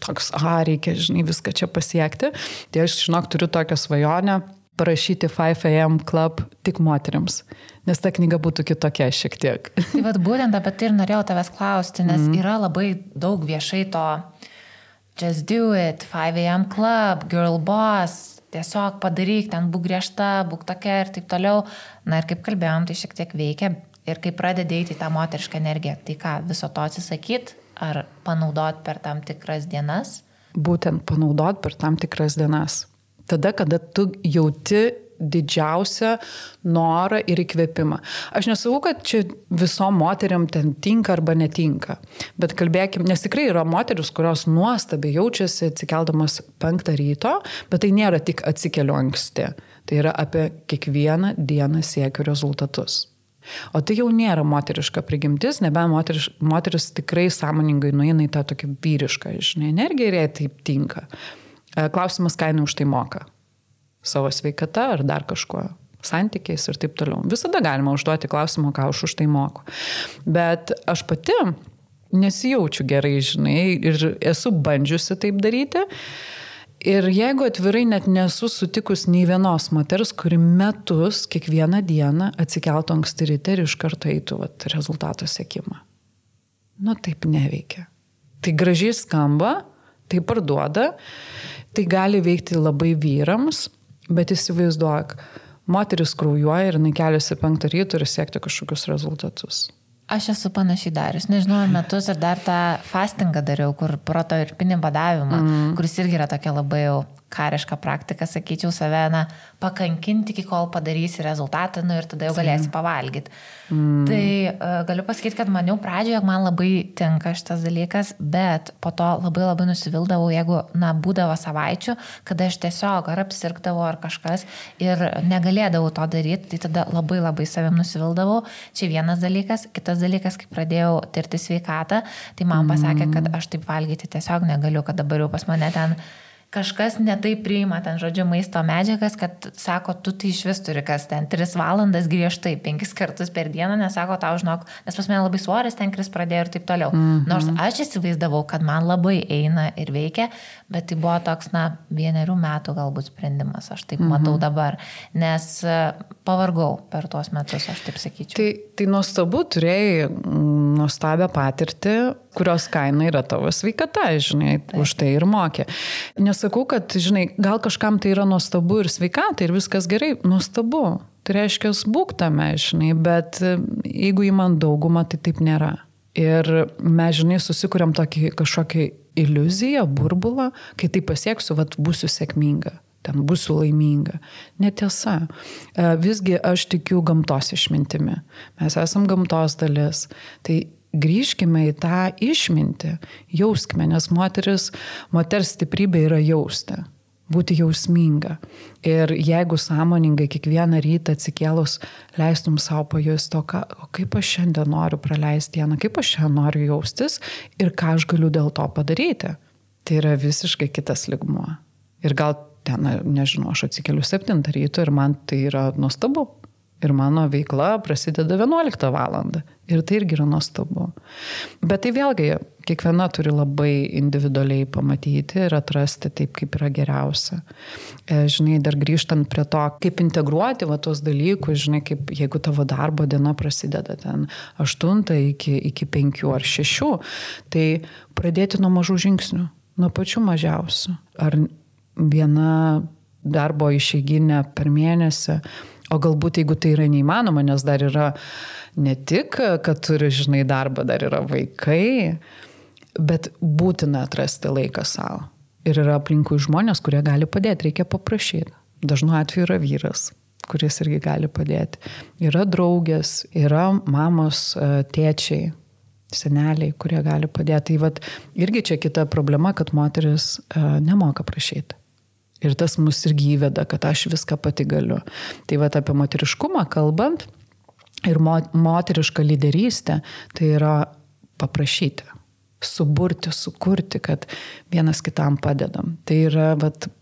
toks, reikia, žinai, viską čia pasiekti. Tai aš, žinok, turiu tokią svajonę parašyti 5 AM club tik moteriams, nes ta knyga būtų kitokia šiek tiek. Tai būtent apie tai ir norėjau tavęs klausti, nes yra labai daug viešai to just do it, 5 AM club, girl boss, tiesiog padaryk, ten būk griežta, būk tokia ir taip toliau. Na ir kaip kalbėjom, tai šiek tiek veikia. Ir kai pradedi eiti tą moterišką energiją, tai ką, viso to atsisakyt ar panaudot per tam tikras dienas? Būtent panaudot per tam tikras dienas. Tada, kada tu jauti didžiausią norą ir įkvėpimą. Aš nesakau, kad čia visom moteriam ten tinka arba netinka, bet kalbėkim, nes tikrai yra moteris, kurios nuostabiai jaučiasi atsikeldamas 5 ryto, bet tai nėra tik atsikeliu anksti. Tai yra apie kiekvieną dieną siekiu rezultatus. O tai jau nėra moteriška prigimtis, nebent moteris tikrai sąmoningai nueina į tą tokį vyrišką, energiją ir jai taip tinka. Klausimas, ką jinai už tai moka. Savo sveikata ar dar kažkuo, santykiais ir taip toliau. Visada galima užduoti klausimą, ką už tai moku. Bet aš pati nesijaučiu gerai, ir esu bandžiusi taip daryti. Ir jeigu atvirai net nesu sutikus nei vienos moters, kuri metus kiekvieną dieną atsikeltų anksti ryte ir iš karto eitų rezultato siekimą. Taip neveikia. Tai gražiai skamba, tai parduoda, tai gali veikti labai vyrams, bet įsivaizduok, moteris kraujuoja ir keliasi 5 ryto ir siekti kažkokius rezultatus. Aš esu panašiai darius, nežinau, metus ir dar tą fastingą dariau, kur proto ir pinį badavimą, kuris irgi yra tokia labai jau kariška praktika, sakyčiau, save, pakankinti, iki kol padarysi rezultatą, ir tada jau galėsi pavalgyti. Tai galiu pasakyti, kad maniau pradžioje, jog man labai tinka šitas dalykas, bet po to labai labai nusivildavau, jeigu, būdavo savaičių, kada aš tiesiog ar apsirgdavau ar kažkas ir negalėdavau to daryti, tai tada labai labai savim nusivildavau. Čia vienas dalykas. Kitas dalykas, kai pradėjau tirti sveikatą, tai man pasakė, kad aš taip valgyti tiesiog negaliu, kad dabar jau pas mane ten kažkas netaip priima ten, žodžiu, maisto medžiagas, kad sako, tu tai iš vis turi kas ten 3 valandas griežtai, 5 kartus per dieną, nesako tau, žinok, nes pas mane labai svoris ten kris pradėjo ir taip toliau. Nors aš įsivaizdavau, kad man labai eina ir veikia, bet tai buvo toks, 1 metų galbūt sprendimas, aš taip matau dabar, nes pavargau per tuos metus, aš taip sakyčiau. Tai nuostabu, turėjai nuostabią patirtį, kurios kaina yra tavo sveikata, už tai ir mokė. Nesakau, kad, gal kažkam tai yra nuostabu ir sveikata ir viskas gerai, nuostabu. Tai reiškia, būk tame, bet jeigu įman daugumą, tai taip nėra. Ir mes, susikuriam tokį kažkokį iliuziją, burbulą, kai tai pasieksiu, būsiu sėkminga. Ten būsiu laiminga. Netiesa. Visgi aš tikiu gamtos išmintimi. Mes esam gamtos dalis. Tai grįžkime į tą išmintį, jauskime, nes moters stiprybė yra jausti, būti jausminga. Ir jeigu sąmoningai kiekvieną rytą atsikėlus leistum savo pajusti, o kaip aš šiandien noriu praleisti dieną, kaip aš šiandien noriu jaustis ir ką aš galiu dėl to padaryti, tai yra visiškai kitas lygmuo. Ir gal ten, nežinau, aš atsikeliu 7 ryto ir man tai yra nuostabu. Ir mano veikla prasideda 11 valandą. Ir tai irgi yra nuostabu. Bet tai vėlgi, kiekviena turi labai individualiai pamatyti ir atrasti taip, kaip yra geriausia. Dar grįžtant prie to, kaip integruoti tuos dalykus, kaip jeigu tavo darbo diena prasideda ten 8 iki 5 ar 6, tai pradėti nuo mažų žingsnių, nuo pačių mažiausių. Ar viena darbo išeiginė per mėnesį, o galbūt jeigu tai yra neįmanoma, nes dar yra ne tik, kad turi, darbą, dar yra vaikai, bet būtina atrasti laiką savo. Ir yra aplinkui žmonės, kurie gali padėti, reikia paprašyti. Dažnu atveju yra vyras, kuris irgi gali padėti. Yra draugės, yra mamos, tėčiai, seneliai, kurie gali padėti. Tai irgi čia kita problema, kad moteris nemoka prašyti. Ir tas mus irgi įveda, kad aš viską pati galiu. Tai apie moteriškumą kalbant ir moterišką lyderystę, tai yra paprašyti, suburti, sukurti, kad vienas kitam padedam. Tai yra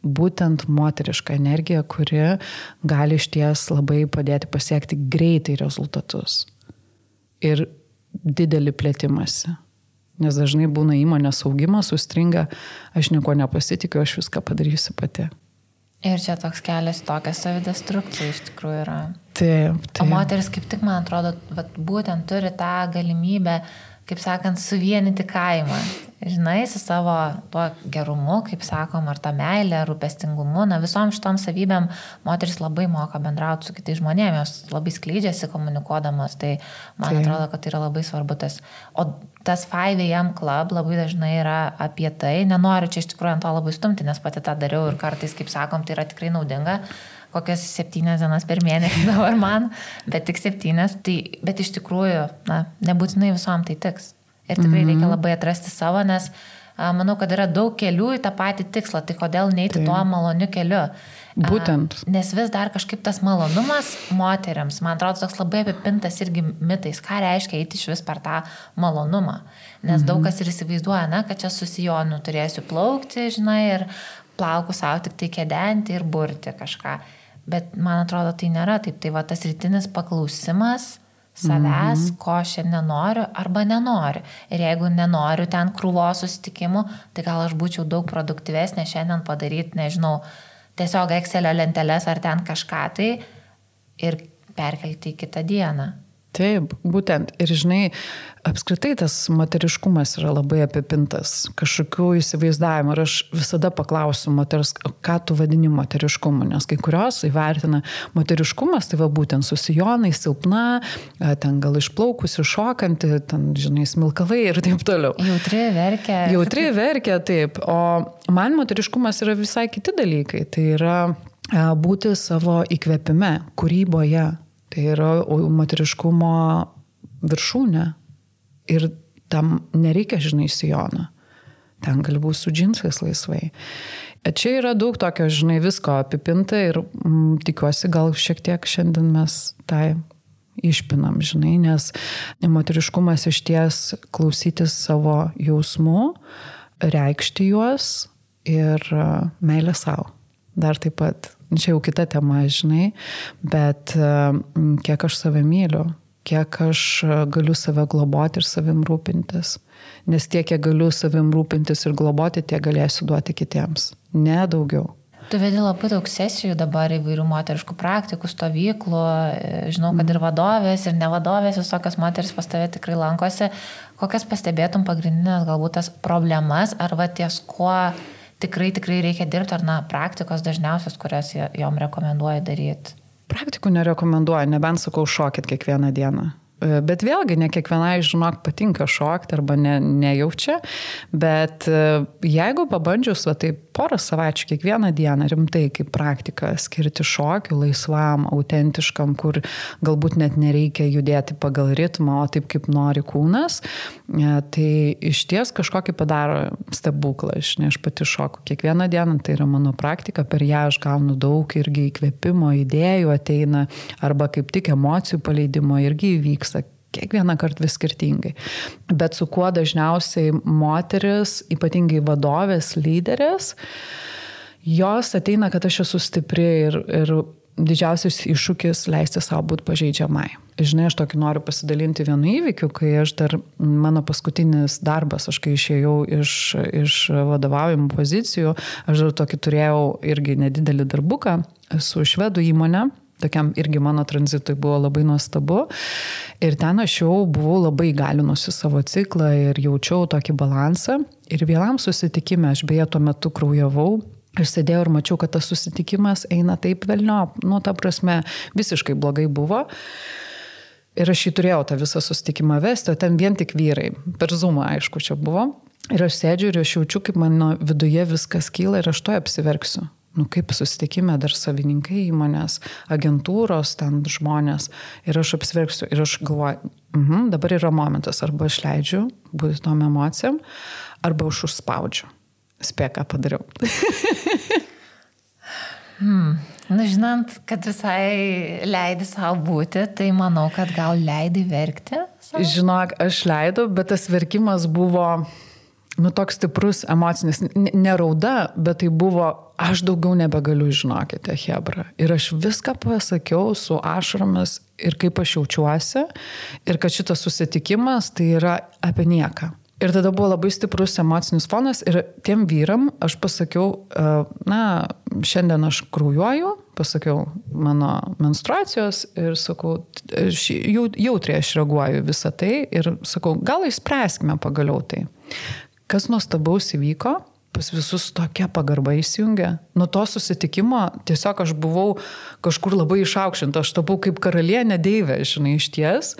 būtent moteriška energija, kuri gali išties labai padėti pasiekti greitai rezultatus. Ir didelį plėtimąsi. Nes dažnai būna įmonės augimas, sustringa, aš nieko nepasitikiu, aš viską padarysiu pati. Ir čia toks kelias tokia savidestrukcija iš tikrųjų yra. Taip. O moteris kaip tik, man atrodo, būtent turi tą galimybę, kaip sakant, suvienyti kaimą. Su savo tuo gerumu, kaip sakom, ar tą meilę, rūpestingumu. Visom šitom savybėm moteris labai moka bendrauti su kitais žmonėmis, jos labai skleidžiasi komunikuodamas, tai man atrodo, kad tai yra labai svarbu tas. O tas 5 AM Club labai dažnai yra apie tai, nenoriu čia iš tikrųjų ant to labai stumti, nes pati tą dariau ir kartais, kaip sakom, tai yra tikrai naudinga. Kokias 7 dienas per mėnesį dabar man, bet tik 7, tai, bet iš tikrųjų, nebūtinai visom tai tiks. Ir tikrai reikia labai atrasti savo, nes manau, kad yra daug kelių į tą patį tikslą, tai kodėl neiti tuo maloniu keliu. Būtent. Nes vis dar kažkaip tas malonumas moteriams, man atrodo, toks labai apipintas irgi mitais, ką reiškia eiti iš vis per tą malonumą. Nes daug kas ir įsivaizduoja, kad čia su sijonu turėsiu plaukti, žinai, ir plauku savo tik tai kedenti ir burti kažką. Bet man atrodo, tai nėra taip. Tai va tas rytinis paklausimas savęs, ko šiandien noriu arba nenoriu. Ir jeigu nenoriu ten krūvos susitikimų, tai gal aš būčiau daug produktyvesnė šiandien padaryti, nežinau, tiesiog Excelio lenteles ar ten kažką tai ir perkelti į kitą dieną. Taip, būtent. Ir žinai, apskritai tas moteriškumas yra labai apipintas kažkokių įsivaizdavimų. Ir aš visada paklausiu moters, ką tu vadini moteriškumu, nes kai kurios įvertina moteriškumas, tai va būtent su sijonai, silpna, ten gal išplaukusi, šokanti, ten, žinai, smilkalai ir taip toliau. Jautri verkia, taip. O man moteriškumas yra visai kiti dalykai. Tai yra būti savo įkvėpime, kūryboje. Tai yra moteriškumo viršūnė. Ir tam nereikia, žinai, sijono. Ten gali būti su džinsais laisvai. Čia yra daug tokio, žinai, visko apipinta ir tikiuosi, gal šiek tiek šiandien mes tai išpinam, žinai, nes moteriškumas išties klausytis savo jausmų, reikšti juos ir meilę savo. Dar taip pat, čia jau kita tema, žinai, bet kiek aš save myliu, kiek aš galiu save globoti ir savim rūpintis. Nes tiek, kiek galiu savim rūpintis ir globoti, tiek galėsiu duoti kitiems. Ne daugiau. Tu vedi labai daug sesijų dabar įvairių moteriškų praktikų, stovyklų, žinau, kad ir vadovės, ir nevadovės, visokios moteris pas tave tikrai lankosi. Kokias pastebėtum pagrindinės galbūt tas problemas, ar va ties kuo tikrai reikia dirbti, ar praktikos dažniausios, kurias jom rekomenduoja daryti? Praktikų nerekomenduoju, nebent sakau šokit kiekvieną dieną. Bet vėlgi, ne kiekvienai, žinok, patinka šokti arba nejaučia, bet jeigu pabandžius, tai porą savaičių kiekvieną dieną rimtai kaip praktika skirti šokių laisvam, autentiškam, kur galbūt net nereikia judėti pagal ritmą, o taip kaip nori kūnas, tai išties kažkokį padaro stebuklą. Aš pati šoku kiekvieną dieną, tai yra mano praktika, per ją aš gaunu daug irgi įkvėpimo, idėjų ateina, arba kaip tik emocijų paleidimo irgi įvyks. Kiekvieną kartą vis skirtingai. Bet su kuo dažniausiai moteris, ypatingai vadovės, lyderės, jos ateina, kad aš esu stipri ir didžiausias iššūkis leisti savo būti pažeidžiamai. Žinai, aš tokį noriu pasidalinti vienu įvykiu, kai aš dar, mano paskutinis darbas, aš kai išėjau iš vadovaujamų pozicijų, aš dar tokį turėjau irgi nedidelį darbuką su švedų įmonė. Tokiam irgi mano tranzitui buvo labai nuostabu. Ir ten aš jau buvau labai įgalinusi savo ciklą ir jaučiau tokį balansą. Ir vienam susitikime, aš beje tuo metu kraujavau, aš sėdėjau ir mačiau, kad tas susitikimas eina taip velniop. Ta prasme, visiškai blogai buvo. Ir aš jį turėjau tą visą susitikimą vesti, o ten vien tik vyrai. Per Zoomą, aišku, čia buvo. Ir aš sėdžiu ir aš jaučiu, kaip mano viduje viskas kyla ir aš to apsiverksiu. Kaip susitikime dar savininkai įmonės, agentūros, ten žmonės. Ir aš apsiverksiu ir aš galvoju, dabar yra momentas, arba aš leidžiu būti tom emocijom, arba aš užspaudžiu. Spėk, ką padariau. Žinant, kad visai leidi savo būti, tai manau, kad gal leidi verkti? Žinok, aš leidau, bet tas verkimas buvo toks stiprus emocinis, ne rauda, bet tai buvo, aš daugiau nebegaliu, žinokite, chebra. Ir aš viską pasakiau su ašaromis ir kaip aš jaučiuosi, ir kad šitas susitikimas tai yra apie nieką. Ir tada buvo labai stiprus emocinis fonas ir tiem vyram aš pasakiau, šiandien aš kraujuoju, pasakiau mano menstruacijos ir sakau, jautriai aš reaguoju visą tai ir sakau, gal išspręskime pagaliau tai. Kas nuostabaus įvyko, pas visus tokia pagarba įsijungė. Nuo to susitikimo tiesiog aš buvau kažkur labai išaukštinta, aš tapau kaip karalienė deivė, žinai, išties.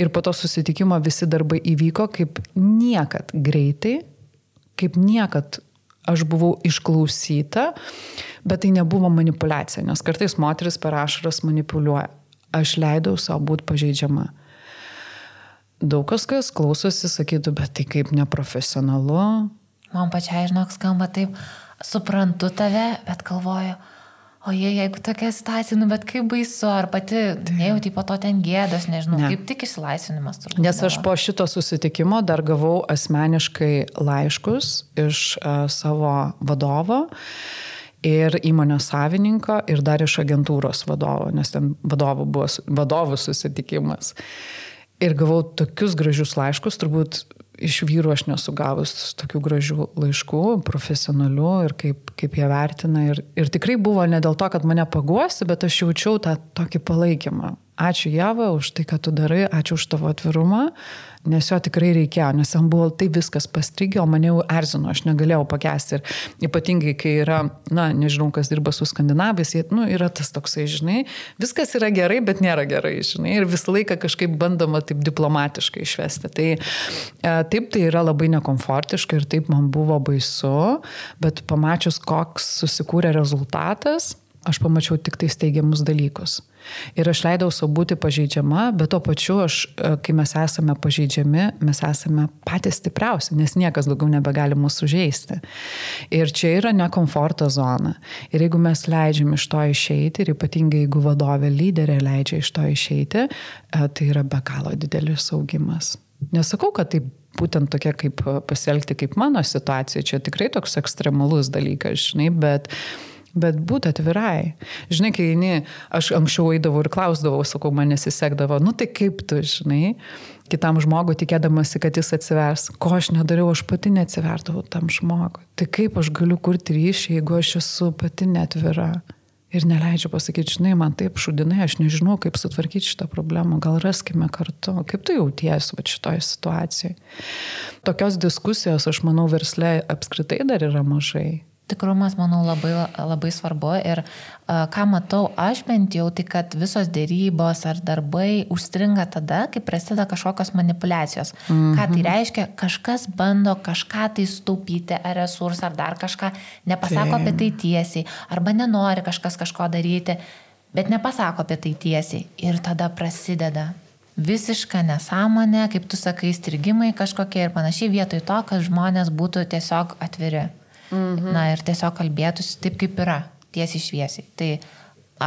Ir po to susitikimo visi darbai įvyko kaip niekad greitai, kaip niekad aš buvau išklausyta, bet tai nebuvo manipulacija, nes kartais moteris per ašaras manipuliuoja. Aš leidau savo būti pažeidžiama. Daug kas klausosi, sakytų, bet tai kaip neprofesionalu, Man pačiai, žinok, skamba taip, suprantu tave, bet galvoju, o jeigu tokia situacija, bet kaip baisu, ar pati nejauti po to ten gėdos, nežinau, kaip tik išsilaisvinimas turbūt. Nes aš po šito susitikimo dar gavau asmeniškai laiškus iš savo vadovo ir įmonės savininko ir dar iš agentūros vadovo, nes ten vadovų susitikimas. Ir gavau tokius gražius laiškus, turbūt iš vyrų aš nesu gavus tokių gražių laiškų, profesionalių ir kaip jie vertina. Ir tikrai buvo ne dėl to, kad mane paguosi, bet aš jaučiau tą tokį palaikymą. Ačiū Ieva už tai, ką tu darai, ačiū už tavo atvirumą, nes jo tikrai reikėjo, nes jam buvo tai viskas pastrigė, o mane jau erzino, aš negalėjau pakęsti. Ir ypatingai, kai yra, nežinau, kas dirba su skandinavais, yra tas toksai, žinai, viskas yra gerai, bet nėra gerai, žinai, ir visą laiką kažkaip bandoma taip diplomatiškai išvesti. Tai taip tai yra labai nekomfortiška ir taip man buvo baisu, bet pamačius, koks susikūrė rezultatas, aš pamačiau tik tai steigiamus dalykus. Ir aš leidau savo būti pažeidžiama, bet to pačiu kai mes esame pažeidžiami, mes esame patys stipriausi, nes niekas daugiau nebegali mūsų sužeisti. Ir čia yra nekomforto zona. Ir jeigu mes leidžiam iš to išeiti, ir ypatingai jeigu vadovė lyderė leidžia iš to išeiti, tai yra be galo didelis augimas. Nesakau, kad tai būtent tokia kaip pasielgti kaip mano situacija, čia tikrai toks ekstremalus dalykas, žinai, bet būti atvirai. Žinai, kai aš anksčiau eidavau ir klausdavau, sakau, man nesisekdavo, tai kaip tu, žinai, kitam žmogui tikėdamasi, kad jis atsivers. Ko aš nedariau, aš pati neatsiverdavau tam žmogui. Tai kaip aš galiu kurti ryšį, jeigu aš esu pati neatvira ir neleidžiu pasakyti, žinai, man taip šudinai, aš nežinau, kaip sutvarkyti šitą problemą, gal raskime kartu. Kaip tu jautiesi šitoje situacijoje? Tokios diskusijos, aš manau, versle apskritai dar yra mažai. Tikrumas, manau, labai, labai svarbu ir ką matau aš bent jau, tai kad visos dėrybos ar darbai užstringa tada, kai prasideda kažkokios manipulacijos. Ką tai reiškia? Kažkas bando kažką tai staupyti, ar resursą, ar dar kažką, nepasako apie tai tiesiai, arba nenori kažkas kažko daryti, bet nepasako apie tai tiesiai. Ir tada prasideda visiška nesąmonė, kaip tu sakai, strigimai kažkokie ir panašiai, vietoj to, kad žmonės būtų tiesiog atviri. Ir tiesiog kalbėtųsi taip, kaip yra, tiesiai šviesiai. Tai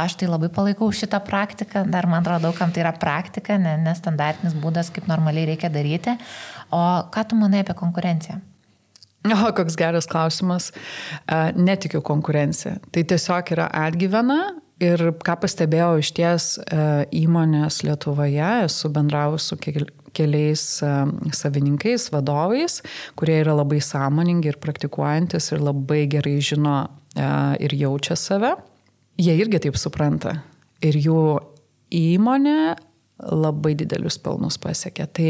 aš tai labai palaikau šitą praktiką, dar man atrodo, kam tai yra praktika, nestandartinis būdas, kaip normaliai reikia daryti. O ką tu manai apie konkurenciją? Koks geras klausimas. Netikiu konkurenciją. Tai tiesiog yra atgyvena ir ką pastebėjau iš ties įmonės Lietuvoje, esu bendravus su keliais savininkais, vadovais, kurie yra labai sąmoningi ir praktikuojantis ir labai gerai žino ir jaučia save. Jie irgi taip supranta. Ir jų įmonė labai didelius pelnus pasiekė. Tai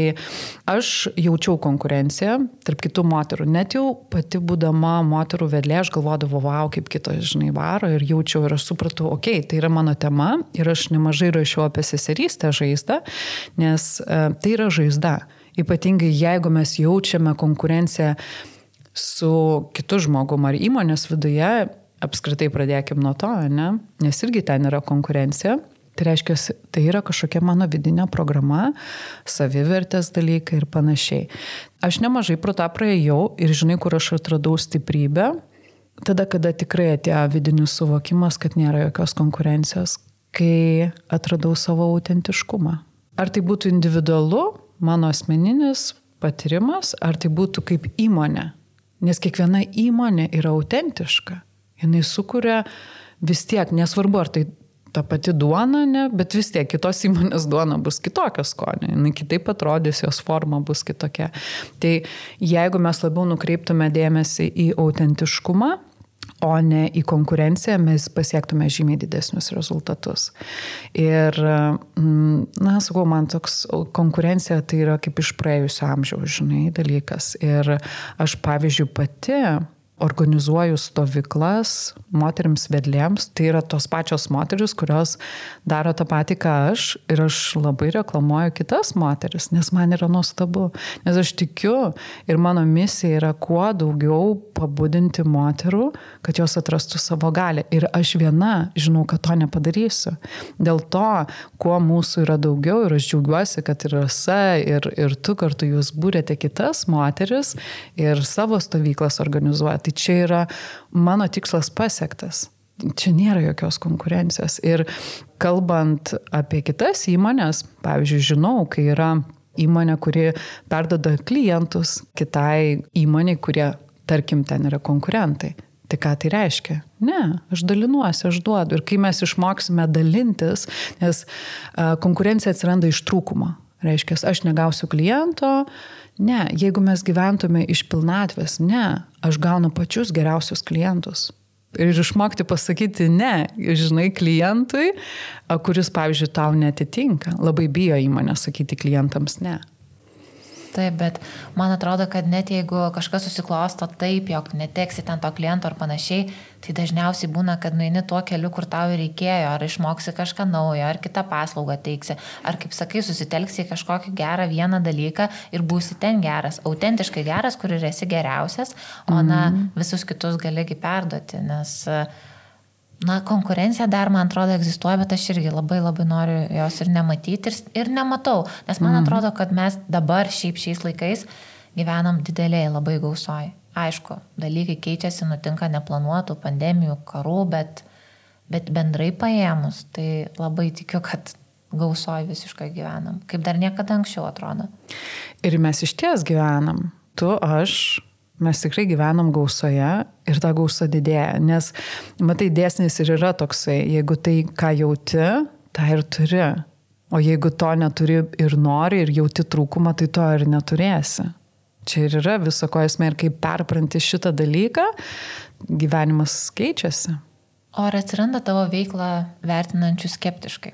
aš jaučiau konkurenciją tarp kitų moterų. Net jau pati būdama moterų vedlė, aš galvodavau, wow, kaip kitos, žinai, varo ir jaučiau ir aš supratau, tai yra mano tema ir aš nemažai rašiau apie seserystę žaizdą, nes tai yra žaizda. Ypatingai jeigu mes jaučiame konkurenciją su kitu žmogum ar įmonės viduje, apskritai pradėkim nuo to, ne? Nes irgi ten yra konkurencija. Tai reiškia, tai yra kažkokia mano vidinė programa, savivertės dalykai ir panašiai. Aš nemažai pro tą praėjau ir žinai, kur aš atradau stiprybę, tada, kada tikrai atėjo vidinis suvokimas, kad nėra jokios konkurencijos, kai atradau savo autentiškumą. Ar tai būtų individualu, mano asmeninis patyrimas, ar tai būtų kaip įmonė. Nes kiekviena įmonė yra autentiška. Jinai sukuria vis tiek, nesvarbu, ar tai ta pati duona, ne, bet vis tiek kitos įmonės duona bus kitokia skonio, jinai kitaip atrodys, jos forma bus kitokia. Tai jeigu mes labiau nukreiptume dėmesį į autentiškumą, o ne į konkurenciją, mes pasiektume žymiai didesnius rezultatus. Ir, sakau, man toks konkurencija tai yra kaip iš praėjusio amžiaus, žinai, dalykas. Ir aš, pavyzdžiui, pati organizuoju stovyklas moterims vedlėms, tai yra tos pačios moteris, kurios daro tą patį, ką aš, ir aš labai reklamuoju kitas moteris, nes man yra nuostabu, nes aš tikiu ir mano misija yra kuo daugiau pabudinti moterų, kad jos atrastų savo galią. Ir aš viena žinau, kad to nepadarysiu. Dėl to, kuo mūsų yra daugiau, ir aš džiaugiuosi, kad ir Rasa, ir tu kartu jūs būrėte kitas moteris ir savo stovyklas organizuoja. Tai čia yra mano tikslas pasiektas. Čia nėra jokios konkurencijos. Ir kalbant apie kitas įmonės, pavyzdžiui, žinau, kai yra įmonė, kuri perduoda klientus kitai įmonei, kurie, tarkim, ten yra konkurentai. Tai ką tai reiškia? Ne, aš dalinuosi, aš duodu. Ir kai mes išmoksime dalintis, nes konkurencija atsiranda iš trūkumo. Reiškia, aš negausiu kliento, ne, jeigu mes gyventume iš pilnatvės, ne, aš gaunu pačius geriausius klientus. Ir išmokti pasakyti ne, žinai, klientui, kuris, pavyzdžiui, tau netitinka. Labai bijo įmonė sakyti klientams ne. Taip, bet man atrodo, kad net jeigu kažkas susiklosto taip, jog neteksi ten to kliento ar panašiai, tai dažniausiai būna, kad nueini tuo keliu, kur tau reikėjo, ar išmoksi kažką naujo, ar kitą paslaugą teiksi, ar, kaip sakai, susitelksi į kažkokį gerą vieną dalyką ir būsi ten geras, autentiškai geras, kur ir esi geriausias, o visus kitus galėgi perduoti, nes konkurencija dar, man atrodo, egzistuoja, bet aš irgi labai noriu jos ir nematyti ir nematau, nes man atrodo, kad mes dabar šiais laikais gyvenam dideliai labai gausoj. Aišku, dalykai keičiasi, nutinka neplanuotų pandemijų, karų, bet bendrai paėmus, tai labai tikiu, kad gausoj visiškai gyvenam, kaip dar niekada anksčiau atrodo. Ir mes iš ties gyvenam. Tu, aš. Mes tikrai gyvenam gausoje ir ta gausa didėja, nes, matai, dėsnis ir yra toksai, jeigu tai, ką jauti, tą ir turi, o jeigu to neturi ir nori ir jauti trūkumą, tai to ir neturėsi. Čia ir yra viso ko esmė ir kaip perpranti šitą dalyką, gyvenimas keičiasi. O ar atsiranda tavo veiklą vertinančių skeptiškai?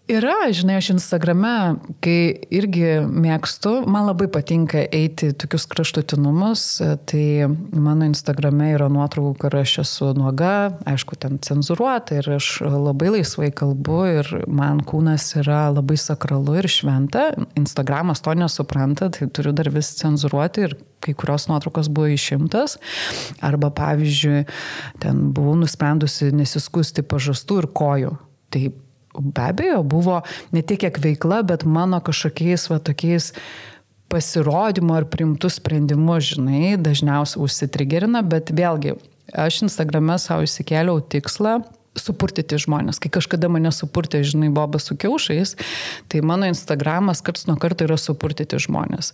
Yra, žinai, aš Instagrame, kai irgi mėgstu, man labai patinka eiti tokius kraštutinumus, tai mano Instagrame yra nuotraukų, kur aš esu nuoga, aišku, ten cenzūruota ir aš labai laisvai kalbu ir man kūnas yra labai sakralu ir šventa. Instagramas to nesupranta, tai turiu dar vis cenzūruoti ir kai kurios nuotraukos buvo išimtas. Arba, pavyzdžiui, ten buvau nusprendusi nesiskusti pažastų ir kojų. Tai be abejo, buvo ne tiek kiek veikla, bet mano kažkokiais tokiais pasirodymo ar priimtų sprendimų, žinai, dažniausiai užsitrigerina, bet vėlgi, aš Instagrame savo išsikėliau tikslą supurtyti žmonės. Kai kažkada mane supurtė, žinai, Bobas su kiaušais, tai mano Instagramas karts nuo karto yra supurtyti žmonės.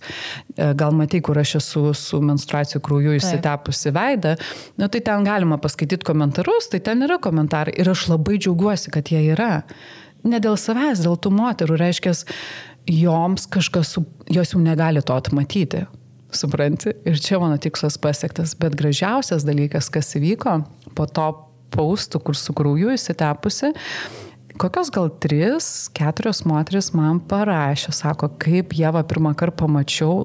Gal matai, kur aš esu su menstruacijų krauju išsitepusi veidą, tai ten galima paskaityti komentarus, tai ten yra komentarai ir aš labai džiaugiuosi, kad jie yra. Ne dėl savęs, dėl tų moterų, reiškia, joms kažkas, jos jau negali to atmatyti. Supranti? Ir čia mano tikslas pasiektas, bet gražiausias dalykas, kas įvyko po to paustų, kur su krauju įsitepusi, kokios gal 3-4 moteris man parašė, sako, kaip Ieva pirmą kartą pamačiau,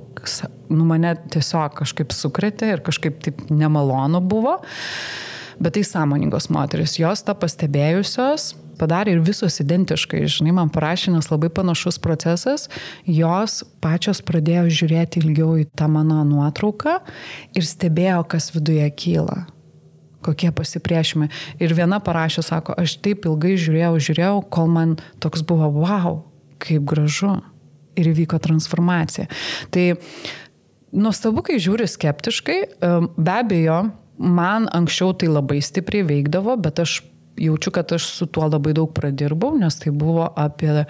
mane tiesiog kažkaip sukrėtė ir kažkaip taip nemalonu buvo, bet tai sąmoningos moteris, jos tą pastebėjusios padarė ir visos identiškai, žinai, man parašė, nes labai panašus procesas, jos pačios pradėjo žiūrėti ilgiau į tą mano nuotrauką ir stebėjo, kas viduje kyla. Kokie pasipriešimai. Ir viena parašė, sako, aš taip ilgai žiūrėjau, kol man toks buvo, wow, kaip gražu. Ir įvyko transformacija. Tai nuostabu, kai žiūri skeptiškai, be abejo, man anksčiau tai labai stipriai veikdavo, bet aš jaučiu, kad aš su tuo labai daug pradirbau, nes tai buvo apie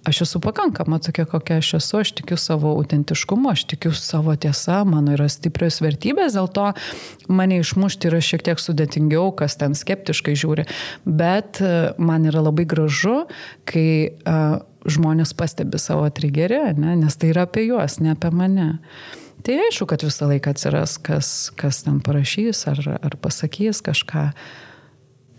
aš esu pakankama tokia, kokia aš esu, aš tikiu savo autentiškumu, aš tikiu savo tiesa, mano yra stiprios vertybės, dėl to mane išmušti yra šiek tiek sudėtingiau, kas ten skeptiškai žiūri, bet man yra labai gražu, kai žmonės pastebi savo trigerį, nes tai yra apie juos, ne apie mane. Tai aišku, kad visą laiką atsiras, kas ten parašys ar pasakys kažką.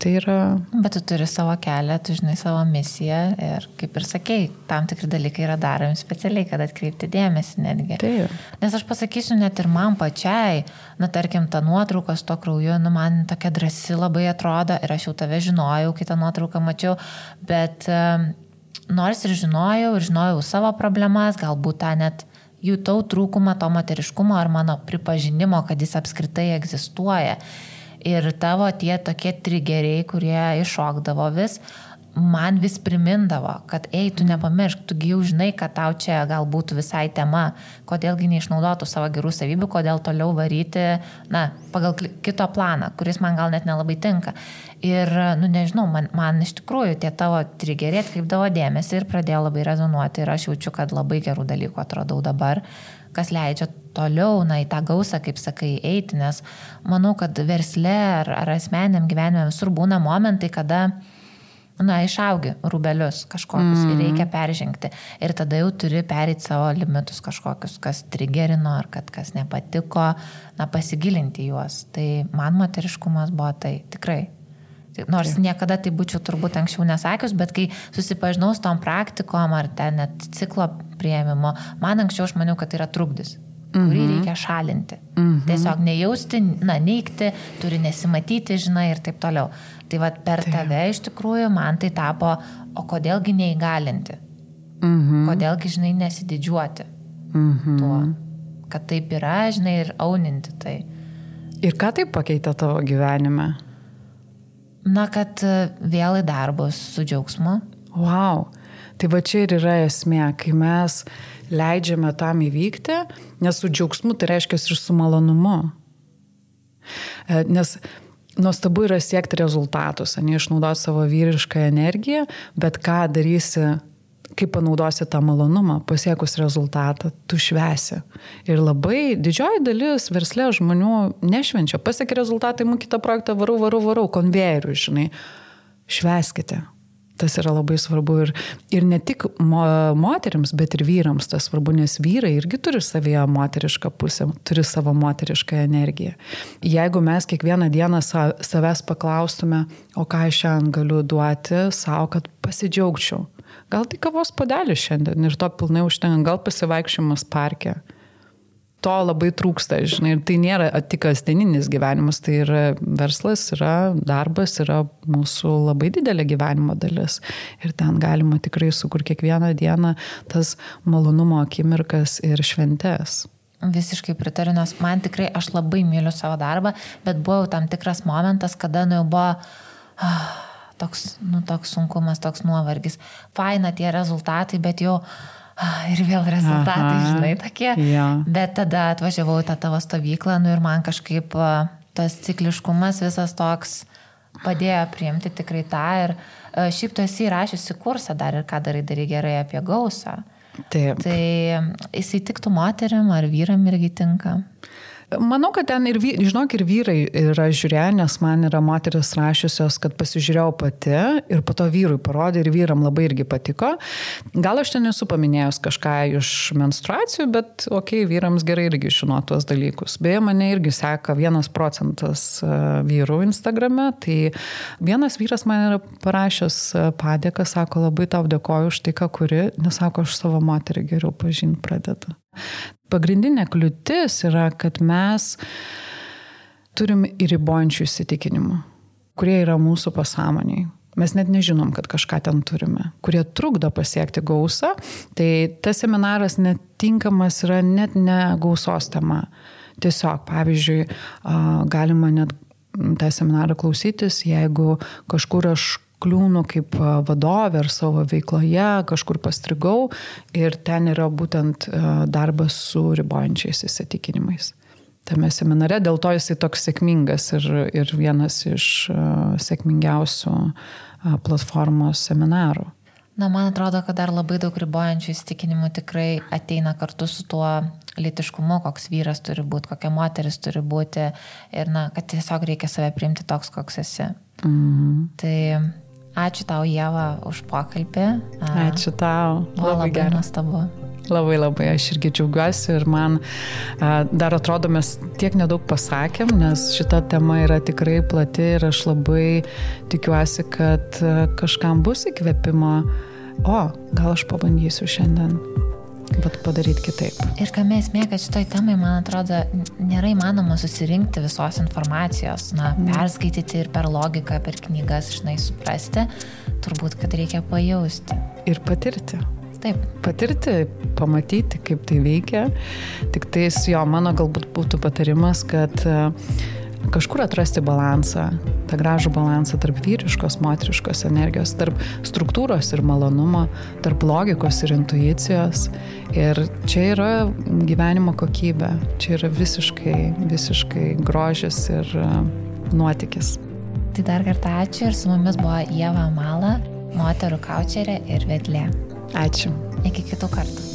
tai yra... Bet tu turi savo kelią, tu žinai savo misiją ir, kaip ir sakei, tam tikri dalykai yra daromi specialiai, kad atkreipti dėmesį netgi. Taip. Nes aš pasakysiu, net ir man pačiai, tarkim, ta nuotrauka su to krauju, man tokia drąsi labai atrodo ir aš jau tave žinojau, kai tą nuotrauką mačiau, bet nors ir žinojau savo problemas, galbūt tą net jutau trūkumą to moteriškumo ar mano pripažinimo, kad jis apskritai egzistuoja. Ir tavo tie tokie trigeriai, kurie iššokdavo vis, man vis primindavo, kad tu nepamiršk, tu jau žinai, kad tau čia gal būtų visai tema, kodėlgi neišnaudotų savo gerų savybių, kodėl toliau varyti, pagal kito planą, kuris man gal net nelabai tinka. Ir, nežinau, man iš tikrųjų tie tavo trigeriai atkreipdavo dėmesį ir pradėjo labai rezonuoti ir aš jaučiu, kad labai gerų dalykų atradau dabar, kas leidžia toliau, į tą gausą, kaip sakai, eiti, nes manau, kad versle ar asmeniniam gyvenime visur būna momentai, kada išaugi rūbelius kažkokius ir reikia peržengti. Ir tada jau turi pereiti savo limitus kažkokius, kas trigerino ar kas nepatiko, pasigilinti juos. Tai man moteriškumas buvo tai tikrai. Nors niekada tai būčiau turbūt anksčiau nesakius, bet kai susipažinau su tom praktikom ar ten net ciklo priėmimo, man anksčiau aš maniau, kad tai yra trukdis, kurį reikia šalinti. Tiesiog nejausti, neigti, turi nesimatyti, žinai, ir taip toliau. Tai per tave iš tikrųjų man tai tapo, o kodėlgi neįgalinti? Kodėlgi, žinai, nesididžiuoti tuo, kad taip yra, žinai, ir auninti tai. Ir ką tai pakeitė tavo gyvenime? Kad vėl į darbus su džiaugsmu. Wow. Tai va čia ir yra esmė, kai mes leidžiame tam įvykti, nes su džiaugsmu tai reiškia ir su malonumu. Nes nuostabu yra siekti rezultatus, neišnaudoti savo vyrišką energiją, bet ką darysi, kaip panaudosi tą malonumą, pasiekus rezultatą, tu švesi. Ir labai didžioji dalis versle žmonių nešvenčia. Pasiekia rezultatai, kitą projektą varau, konvejerių, žinai. Šveskite. Tas yra labai svarbu ir ne tik moterims, bet ir vyrams tas svarbu, nes vyrai irgi turi savyje moterišką pusę, turi savo moterišką energiją. Jeigu mes kiekvieną dieną savęs paklaustume, o ką aš šiandien galiu duoti savo, kad pasidžiaugčiau. Gal tai kavos puodelis šiandien ir to pilnai užtenka, gal pasivaikščiojimas parke. To labai trūksta, žinai, ir tai nėra tik kasdieninis gyvenimas, tai yra verslas, yra darbas, yra mūsų labai didelė gyvenimo dalis. Ir ten galima tikrai sukurti kiekvieną dieną tas malonumo akimirkas ir šventes. Visiškai pritariu, nes man tikrai, aš labai myliu savo darbą, bet buvo tam tikras momentas, kada jau buvo toks sunkumas, toks nuovargis. Faina tie rezultatai, bet jau ir vėl rezultatai, žinai, tokie. Yeah. Bet tada atvažiavau į tą tavo stovyklą, ir man kažkaip tas cikliškumas visas toks padėjo priimti tikrai tą. Ir šiaip tu esi įrašiusi kursą dar ir ką darai gerai apie gausą. Taip. Tai jisai tiktų moteriam ar vyram irgi tinka? Manau, kad ten ir vyrai yra žiūrėję, nes man yra moteris rašiusios, kad pasižiūrėjau pati ir po to vyrui parodė ir vyram labai irgi patiko. Gal aš ten esu paminėjus kažką iš menstruacijų, bet vyrams gerai irgi žinot tuos dalykus. Beje, mane irgi seka 1% vyrų Instagrame, tai vienas vyras man yra parašęs padėką, sako, labai tau dėkoju už tai, ką kuri, nes sako, aš savo moterį geriau pažinti pradedu. Pagrindinė kliūtis yra, kad mes turim ir ribojančių įsitikinimų, kurie yra mūsų pasąmoniai. Mes net nežinom, kad kažką ten turime, kurie trukdo pasiekti gausą. Tai tas seminaras netinkamas yra net ne gausos tema. Tiesiog, pavyzdžiui, galima net tą seminarą klausytis, jeigu kažkur aš kliūnu kaip vadovė ar savo veikloje, kažkur pastrigau ir ten yra būtent darbas su ribojančiais įsitikinimais. Tame seminare, dėl to jisai toks sėkmingas ir vienas iš sėkmingiausių platformos seminarų. Man atrodo, kad dar labai daug ribojančių įsitikinimų tikrai ateina kartu su tuo lytiškumu, koks vyras turi būti, kokia moteris turi būti ir kad tiesiog reikia save priimti toks, koks esi. Tai ačiū tau, Ieva, už pokalbį. Ačiū tau. Labai nuostabu. Labai labai, aš irgi džiaugiuosi ir man dar atrodo, mes tiek nedaug pasakėm, nes šita tema yra tikrai plati ir aš labai tikiuosi, kad kažkam bus įkvėpimo. Gal aš pabandysiu šiandien, bet padaryti kitaip. Ir kame esmė, kad šitoj temai, man atrodo, nėra įmanoma susirinkti visos informacijos, perskaityti ir per logiką, per knygas, suprasti, turbūt, kad reikia pajausti. Ir patirti. Taip. Patirti, pamatyti, kaip tai veikia. Tik tais mano galbūt būtų patarimas, kad kažkur atrasti balansą, tą gražų balansą tarp vyriškos, moteriškos energijos, tarp struktūros ir malonumo, tarp logikos ir intuicijos. Ir čia yra gyvenimo kokybė, čia yra visiškai grožis ir nuotykis. Tai dar kartą ačiū ir su mumis buvo Ieva Mala, moterų kaučerė ir vedlė. Ačiū. Iki kitų kartų.